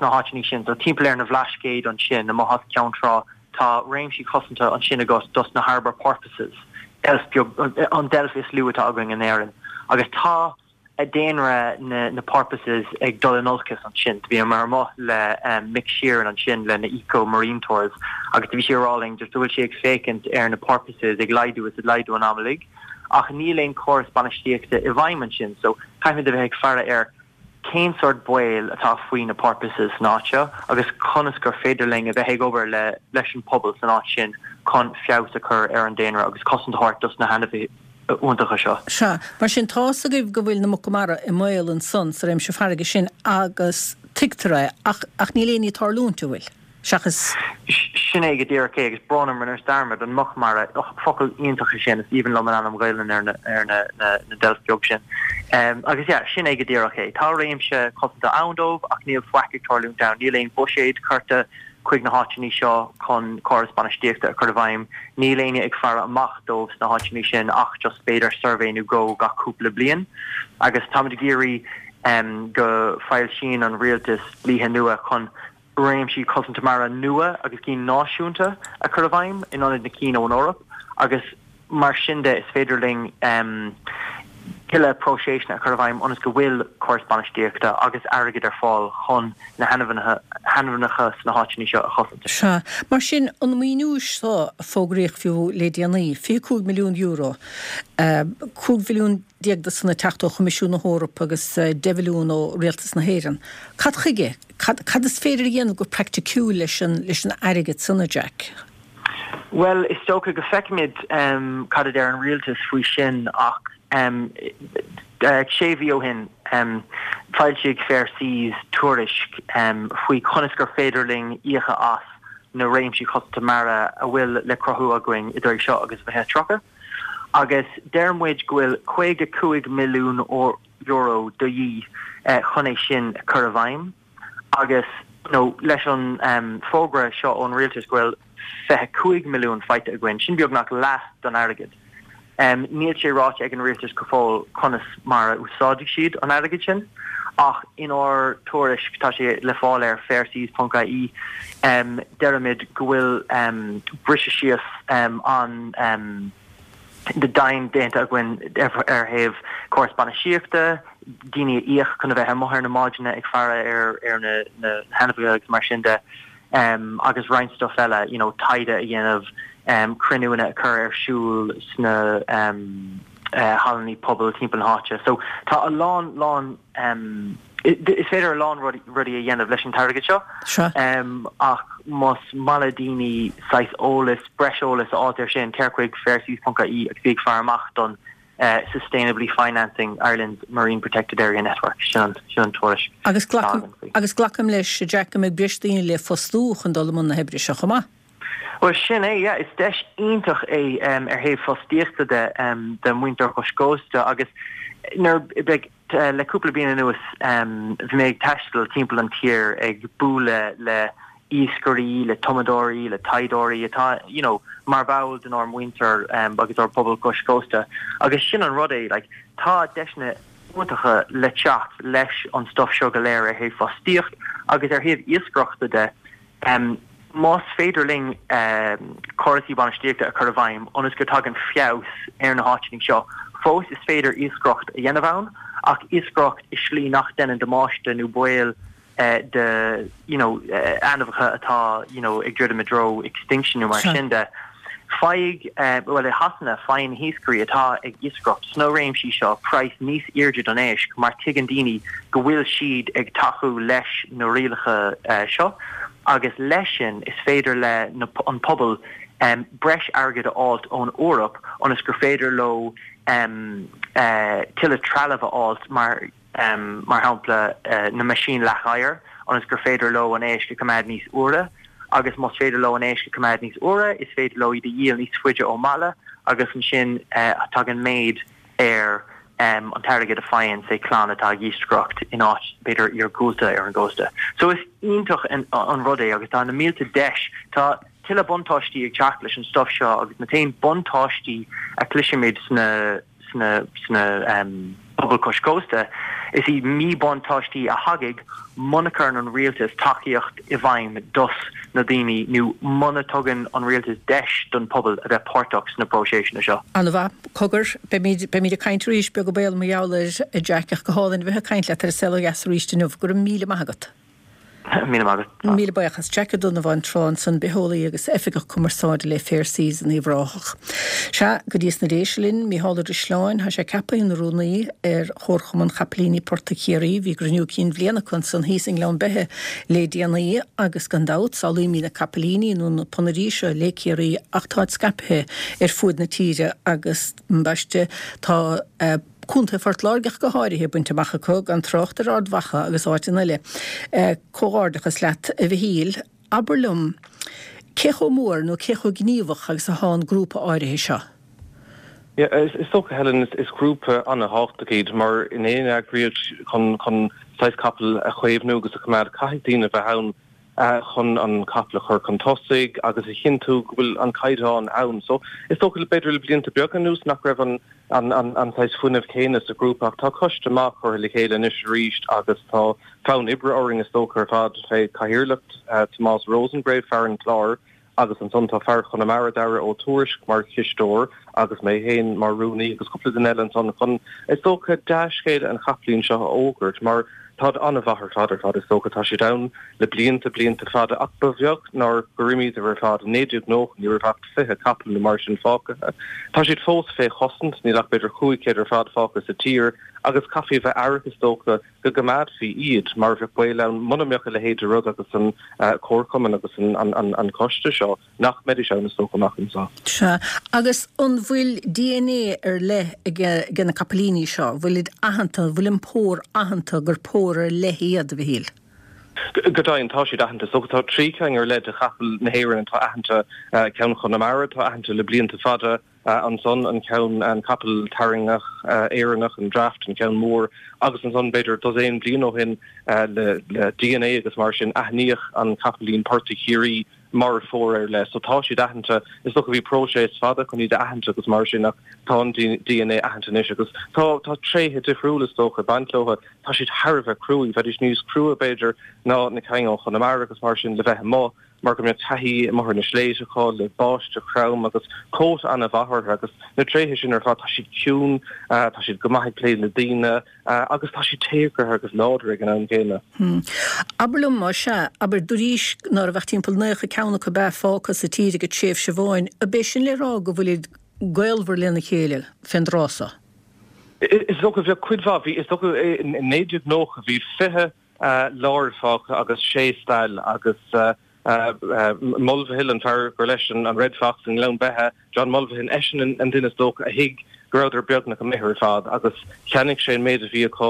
sna háiteanna sin. So timpeall ar na Bhlascaoid ansin, amuigh as Ceann Trá, tá réimsí cosanta ansin agat dos na harbour porpoises, deilf beag, an deilf is lú atá againn in Éirinn. Agus tá daonra na porpoises ag dul in olcas ansin. Do bhíomar amuigh le Mick Sheeran ansin le na Eco Marine Tours agus do bhí sé ag rá linn just go bhfuil sé ag féachaint ar na porpoises ag laghdú is ag laghdú an am uilig ach níl aon córas bainistíochta i bhfeidhm ansin so caithfimid a bheith ag faire ar cén sórt baol atá faoi na porpoises san áit seo agus conas gur féidir linn a bheith ag obair le leis an pobal san áit sin chun feabhas a chur ar an daonra agus cosaint a thabhairt dos na hainmhithe iontacha seo. Sea, mar sin, tá's agaibh go bhfuil na muca mara i mbaol ansan sa réimse farraige sin agus tuigtear é, ach, ach níl aon ní ag tarlúint, an bhfuil? Seachas. Sin é go díreach é, agus brón orm, rinneas dearmad, an muc mara, och, focal iontach é sin, is aoibhinn liom an ainm Ghaelainn ar na, ar na, na, na deilf beag sin. Agus yeah, sin é go díreach é. Tá réimse cosanta ann dóibh ach níl faic ag tarlúint ann, níl aon bhuiséad curtha chuig na háiteanna seo chun córas bainistíochta a chur i bhfeidhm, níl éinne ag faire amach dóibh sna háiteanna sin ach just b'fhéidir suirbhé nó dhó gach cúpla bliain. Agus táimid ag iarraidh go foilsíonn an rialtas dlíthe nua chun réimsí cosanta mara nua agus cinn náisiúnta a chur i bhfeidhm in ionad na cinn ón Eoraip agus mar sin de is féidir linn tuilleadh próiseasanna a chur i bhfeidhm ionas go bhfuil córas bainistíochta agus airgead ar fáil chun na hainmhithe sna háiteanna seo a chosaint. Sea. Mar sin, an maoiniú seo a fógraíodh fiú le déanaí, €25 milliún, 15 mhilliún de san ag teacht ó Choimisiún na hEorpa agus 10 mhilliún ó Rialtas na hÉireann, cad chuige? Cad, cad is féidir a dhéanamh go praiticiúil leis an, leis an airgead san, a Jack? Bhuel, is dócha go feicfimid cad a deir an rialtas faoi sin ach sé mhí ó shin foilsigh Fair Seas tuairisc faoi conas gur féidir linn íocadh as na réimsí cosanta mara a bhfuil le cruthú againn idir seo agus 2030 agus deir muid go bhfuil €55 milliún de dhíth chun é sin a chur i bhfeidhm agus you know leis an fógra seo ón rialtas go bhfuil 25 milliún faighte againn, sin beagnach leath don airgead. Níl sé ráite ag an rialtas go fóill conas mar a úsáidfidh siad an airgead sin ach inár tuairisc, tá sé le fáil ar fairseas.ie, deirimid go bhfuil briseadh síos an dian déanta againn ar thaobh córas bainistíochta, daoine a íoc chun a bheith amuigh ar na mbádanna ag faire ar na hainmhithe agus mar sin de, agus roinnt stuff eile, you know, taighde a dhéanamh, cruinniúanna a chur ar siúl sna hallanna pobail timpeall na háite. So tá a lán, lán, Is féidir a lán rudaí a dhéanamh leis an t-airgead seo ach más maith le daoine saghas eolas, breis eolas a fháilt ar sin, téir chuig fairseas.ie agus bí ag faire amach don Sustainably Financing Ireland's Marine Protected Area Network, sin an tuairisc atá againn faoi. Agus glacaim leis, a Jack, go mbeidh breis daoine le fostú chun dul i mbun na hoibre seo chomh maith. Bhuel, sin é, yeah. Is deis iontach é ar thaobh fostaíochta de do mhuintir chois cósta agus nuair beidh Le cúpla bliain anuas bhí mé ag taisteal timpeall an tír ag bualadh le iascairí, le tumadóirí, le taighdeoirí atá you know mar bhall denár muintir agus ár bpobal cois cósta agus sin an rud é like tá deiseanna iontacha le teacht leis an stuff seo go léir ar thaobh fostaíocht agus ar thaobh iascaireachta de. Más féidir linn córasaí bainistíochta a chur i bhfeidhm ionas go dtagann feabhas ar na háiteanna seo, fós is féidir iascaireacht a dhéanamh ann, ach iascaireacht i slí nach deineann damáiste nó baol do you know ainmhithe atá you know ag druidim i dtreo extinction nó mar sin de. Faigh, bhuel i Shasana, faigheann na hiascairí atá ag iascaireacht sna réimsí seo praghas níos airde don éisc mar tuigeann daoine go bhfuil siad ag tacú leis na rialacha seo agus leis sin is féidir le an pobal breis airgid a fháilt ón Eoraip ionas gur féidir leo tuilleadh trealamh a fháilt mar mar shampla na meaisín leath-oighir, ionas gur féidir leo an éisc a choimeád níos úire, agus más féidir leo an éisc a choimeád níos úire, is féidir leo iad a dhíol níos faide ón mbaile, agus ansin tagann méid ar an t-airgead a faigheann, say, clann atá ag iascaireacht in áit, b'fhéidir, iargúlta ar an gcósta. So is iontach an rud é agus tá na mílte deis, tá tuilleadh buntáistí ag teacht leis an stuff seo agus na t-aon buntáistí a chloisimid sna sna sna pobail cois cósta, is iad míbhuntáistí a thagann muna cuireann an rialtas tacaíocht i bhfeidhm dos na daoine nó muna tugann an rialtas deis don pobal a bheith páirteach sna próiseasanna seo. An-mhaith. Cogar, beimid, beimid ag caint arís, beag an baol mar gheall air, a Jack, ach go hálainn a bheith ag caint leat ar An Saol Ó Dheas arís inniu. Go raibh míle maith agat. Míle maith agat. Míle buíochas. Jack Ó Donnabháin tráth ansan, bitheolaí agus oifigeach cumarsáide le Fair Seas in Uíbh Ráthach. Sea, go dtí sna Déise linn, Mícheál Ó Drisleáin, tá sé ceaptha ina rúnaí ar Chomharchumann Chapaillíní Portaigh Chiarraí. Bhí gcruinniú cinn bhliana acu ansan thíos i nGleann Beithe le déanaí agus gan dabht, samhlaímid na capaillíní nó na ponairí seo le Ciarraí ach táid scaipthe ar fuaid na tíre agus, ambaiste, tá. Contae Phort Láirge ach go háirithe, bainte amach acu, gan trácht ar Ard Mhacha agus áiteanna eile. Comhghairdeachas leat, a Mhichíl. Abair liom, cé chomh mór nó cé chomh gníomhach agus athá an grúpa áirithe seo? Yeah, is dócha, Helen, is grúpa an-thábhachtach iad mar in aon eagraíocht chun chun saghas capall a chaomhnú agus a choimeád, caithfidh daoine a bheith ann chun an capall a chur chun tosaigh agus a chinntiú go bhfuil an caighdeán ann. So, is dócha, b'fhéidir le blianta beaga anuas nach raibh an an an saghas fuinneamh céanna sa ghrúpa ach tá coiste maith curtha le chéile anois arís agus tá fonn oibre orainn is dócha ar fad fé chathaoirleacht Tomás Rosengrave, fear an Chláir agus ansan tá fear Chonamara, Dara Ó Tuairisg mar chisteoir agus mé féin mar rúnaí agus cúpla duine eile ansan chun is dócha dea-scéala an chapaillín seo a fhógairt mar táid an-mhaith ar fad ar fad is dócha. Tá siad ann le blianta, blianta fada ach ba bheag nár gur imíodar ar fad. I 1990 ní raibh ach 20 capall nó mar sin fágtha. Tá siad fós fé chosaint, níl ach b'fhéidir 500 ar fad fágtha sa tír agus caithfí a bheith aireach is dócha go gcoimeádfaí iad mar bheadh baol ann muna mbeadh a leithéid de rud agus an comharchumann agus an coiste seo nach mbeidís ann is dócha amach anseo. Sea. Agus an bhfuil DNA ar leith ag na capaillíní seo? Bhfuilid aitheanta, an bhfuil an pór aitheanta gur pór ar leith iad, a Mhichíl? Go deimhin, tá siad aitheanta. Is dócha tá 3 ceann ar leith de chapaill na hÉireann atá aitheanta, ceann Chonamara atá aitheanta le blianta fada, ansan an ceann, an capall tarraingtheach Éireannach, an Draft, an ceann mór, agus ansan b'fhéidir dosaen bliain ó shin le DNA agus mar sin aithníodh an capaillín portaigh Chiarraí mar phór ar leith. So tá siad aitheanta. Is dócha bhí próiseas fada chun iad a aithint agus mar sin ach tá an DNA aitheanta anois agus tá tá tréithe difriúla is dócha ag baint leo. Tá siad thar a bheith cruaidh. Bheidís níos crua b'fhéidir ná na cinn ó Chonamara agus mar sin le bheith amuigh. mar go mbeadh taithí amuigh ar na sléibhte acu le báisteach throm agus cóta an-mhaith orthu agus na tréithe sin ar fad, tá siad ciúin, tá siad go maith ag plé le daoine agus tá siad téagartha agus láidir ag an am céanna. Abair liom, más ea, abair, dúraís ná raibh ach timpeall 90 ceann acu ab ea fágtha sa tír ag tréimhse amháin, ab é sin le rá go bhfuilid gaolmhar lena chéile fén dtráth so? Is dócha, bheadh cuid mhaith, bhí, is dócha i 1990 bhí 20 láir fágtha agus sé stail agus Mulvihill, an fear gur leis an Red Fox i nGleann Beithe, John Mulvihill, eisean an duine is dócha a thuig go rabhadar beagnach imithe ar fad agus cheannaigh sé an méid a bhí acu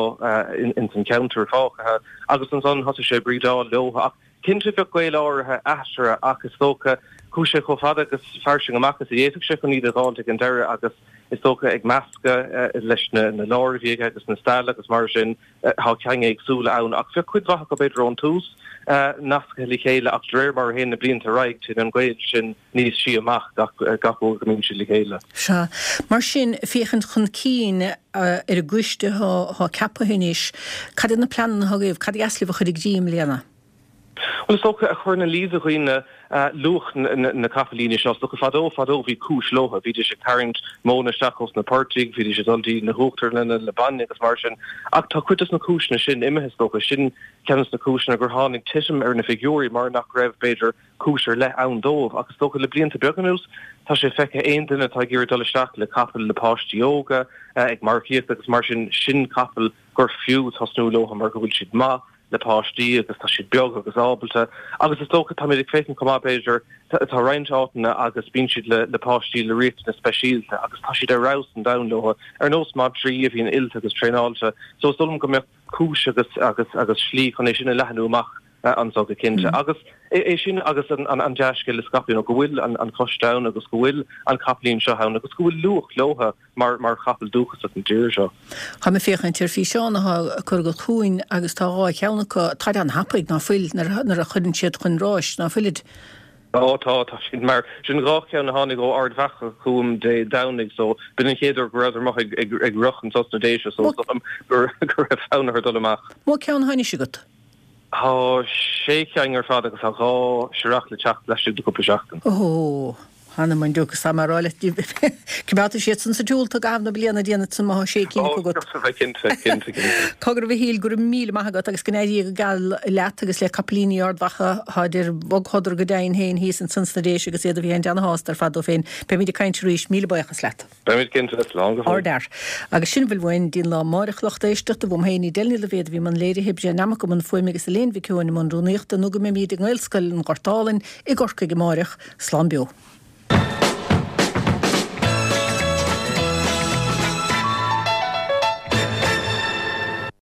ins an cheantar fágtha agus ansan thosaigh sé ag brídeáil leo ach cinnte bheadh gaol áirithe eatarthu ach is dócha chuaigh sé chomh fada agus fairsing amach is a d'fhéadfadh sé chun iad a dh'fháilt ag an deireadh agus is dócha ag meascadh leis na láir a bhí aige agus na stail agus mar sin. Tá cinn éagsúla ann, ach bheadh cuid mhaith acu b'fhéidir ón tús nasctha le chéile ach de réir mar a théann na blianta ar aghaidh téann an gaol sin níos sia amach gach uair go mbíonn siad le chéile. Sea. Mar sin, féachaint chun cinn ar an gcoiste atá ceaptha anois, cad iad na pleananna atá agaibh, cad ba dheas libh a chur i gcrích i mbliana? Bhuel, is dócha, a chur ina luí do dhaoine luach na capaillíní seo. Is dócha, fadó, fadó, bhí cúis leo. Bhídís ag tarraingt móna isteach ós na portaigh, bhídís ag dul dtí na huachtarlanna le bainne agus mar sin. Ach tá cuid dos na cúiseanna sin imithe, is dócha. Sin ceann dos na cúiseanna gur tháinig titim ar na figiúirí, mar nach raibh, b'fhéidir, cúis ar leith ann dóibh. Ach is dócha, le blianta beaga anuas, tá sé feicthe aon duine atá ag iarraidh dul isteach le capall le páistí óga, ag marcaíocht agus mar sin, sin capall gur fiú tosnú leo mar go bhfuil siad maith le páistí agus tá siad beag agus ábalta agus is dócha táimid ag féachaint chomh maith b'fhéidir tá roinnt áiteanna agus bíonn siad le le páistí le riachtanais speisialta agus tá siad ar fheabhas an domhain leo ar nós madraí a bhíonn oilte agus traenáilte so is dóigh liom go mbeadh cúis agus agus agus slí chun é sin a leathnú amach anso go cinnte agus é sin agus an an dea-scéal a scaipeadh you know go bhfuil an an coiste ann agus go bhfuil an capaillín seo ann agus go bhfuil luach leo mar mar chapall dúchasach na tíre seo. Táim ag féachaint ar físeán atá curtha agat chugainn agus tá 2 cheann acu, táid an-thapaidh, ná fuil, nuair a chuireann siad chun ráis, ná fuilid? Ó tá, tá siad mar sin 2 cheann a tháinig ó Ard Mhacha chugam Dé Domhnaigh so b'in an chéad uair go rabhadar amuigh ag ag ag rith anso sna Déise so is dóigh liom go go raibh fonn orthu dul amach. Mó ceann atá anois agat? Tá sé cheann ar fad agus tá 2 searrach le teacht laistigh de cúpla seachtain. Ó! Th'anam 'on diúc, is tá mé a rá leat, coimeádfaidh siad san sa tsiúl i gcaitheamh na bliana, déanfaidh san má tá sé cinn acu agat. Ó, cinnte, cinnte, cinnte. Cogar a Mhichíl, go raibh míle maith agat agus go n-éirí go geal leat agus le capaillíní Ard Mhacha, táid ar bhogshodar go deimhin féin thíos ansan sna Déise agus iad a bheith ana-shásta ar fad dóibh féin. Beimid ag caint arís, míle buíochas leat. Beimid cinnte, slán go fóill. Ardfhear. Agus sin a bhfuil uainn dtí'n lá amáireach, lucht éisteachta, uaim féin, Edel Ní Loibhéad a bhí i mbun léirithe, Brian Nammock i mbun fuaime agus Elaine Mhic Eoin i mbun rúnaíochta, nó go mbeimid i nGaelscoil an Ghort Álainn i gCorcaigh amáireach. Slán beo.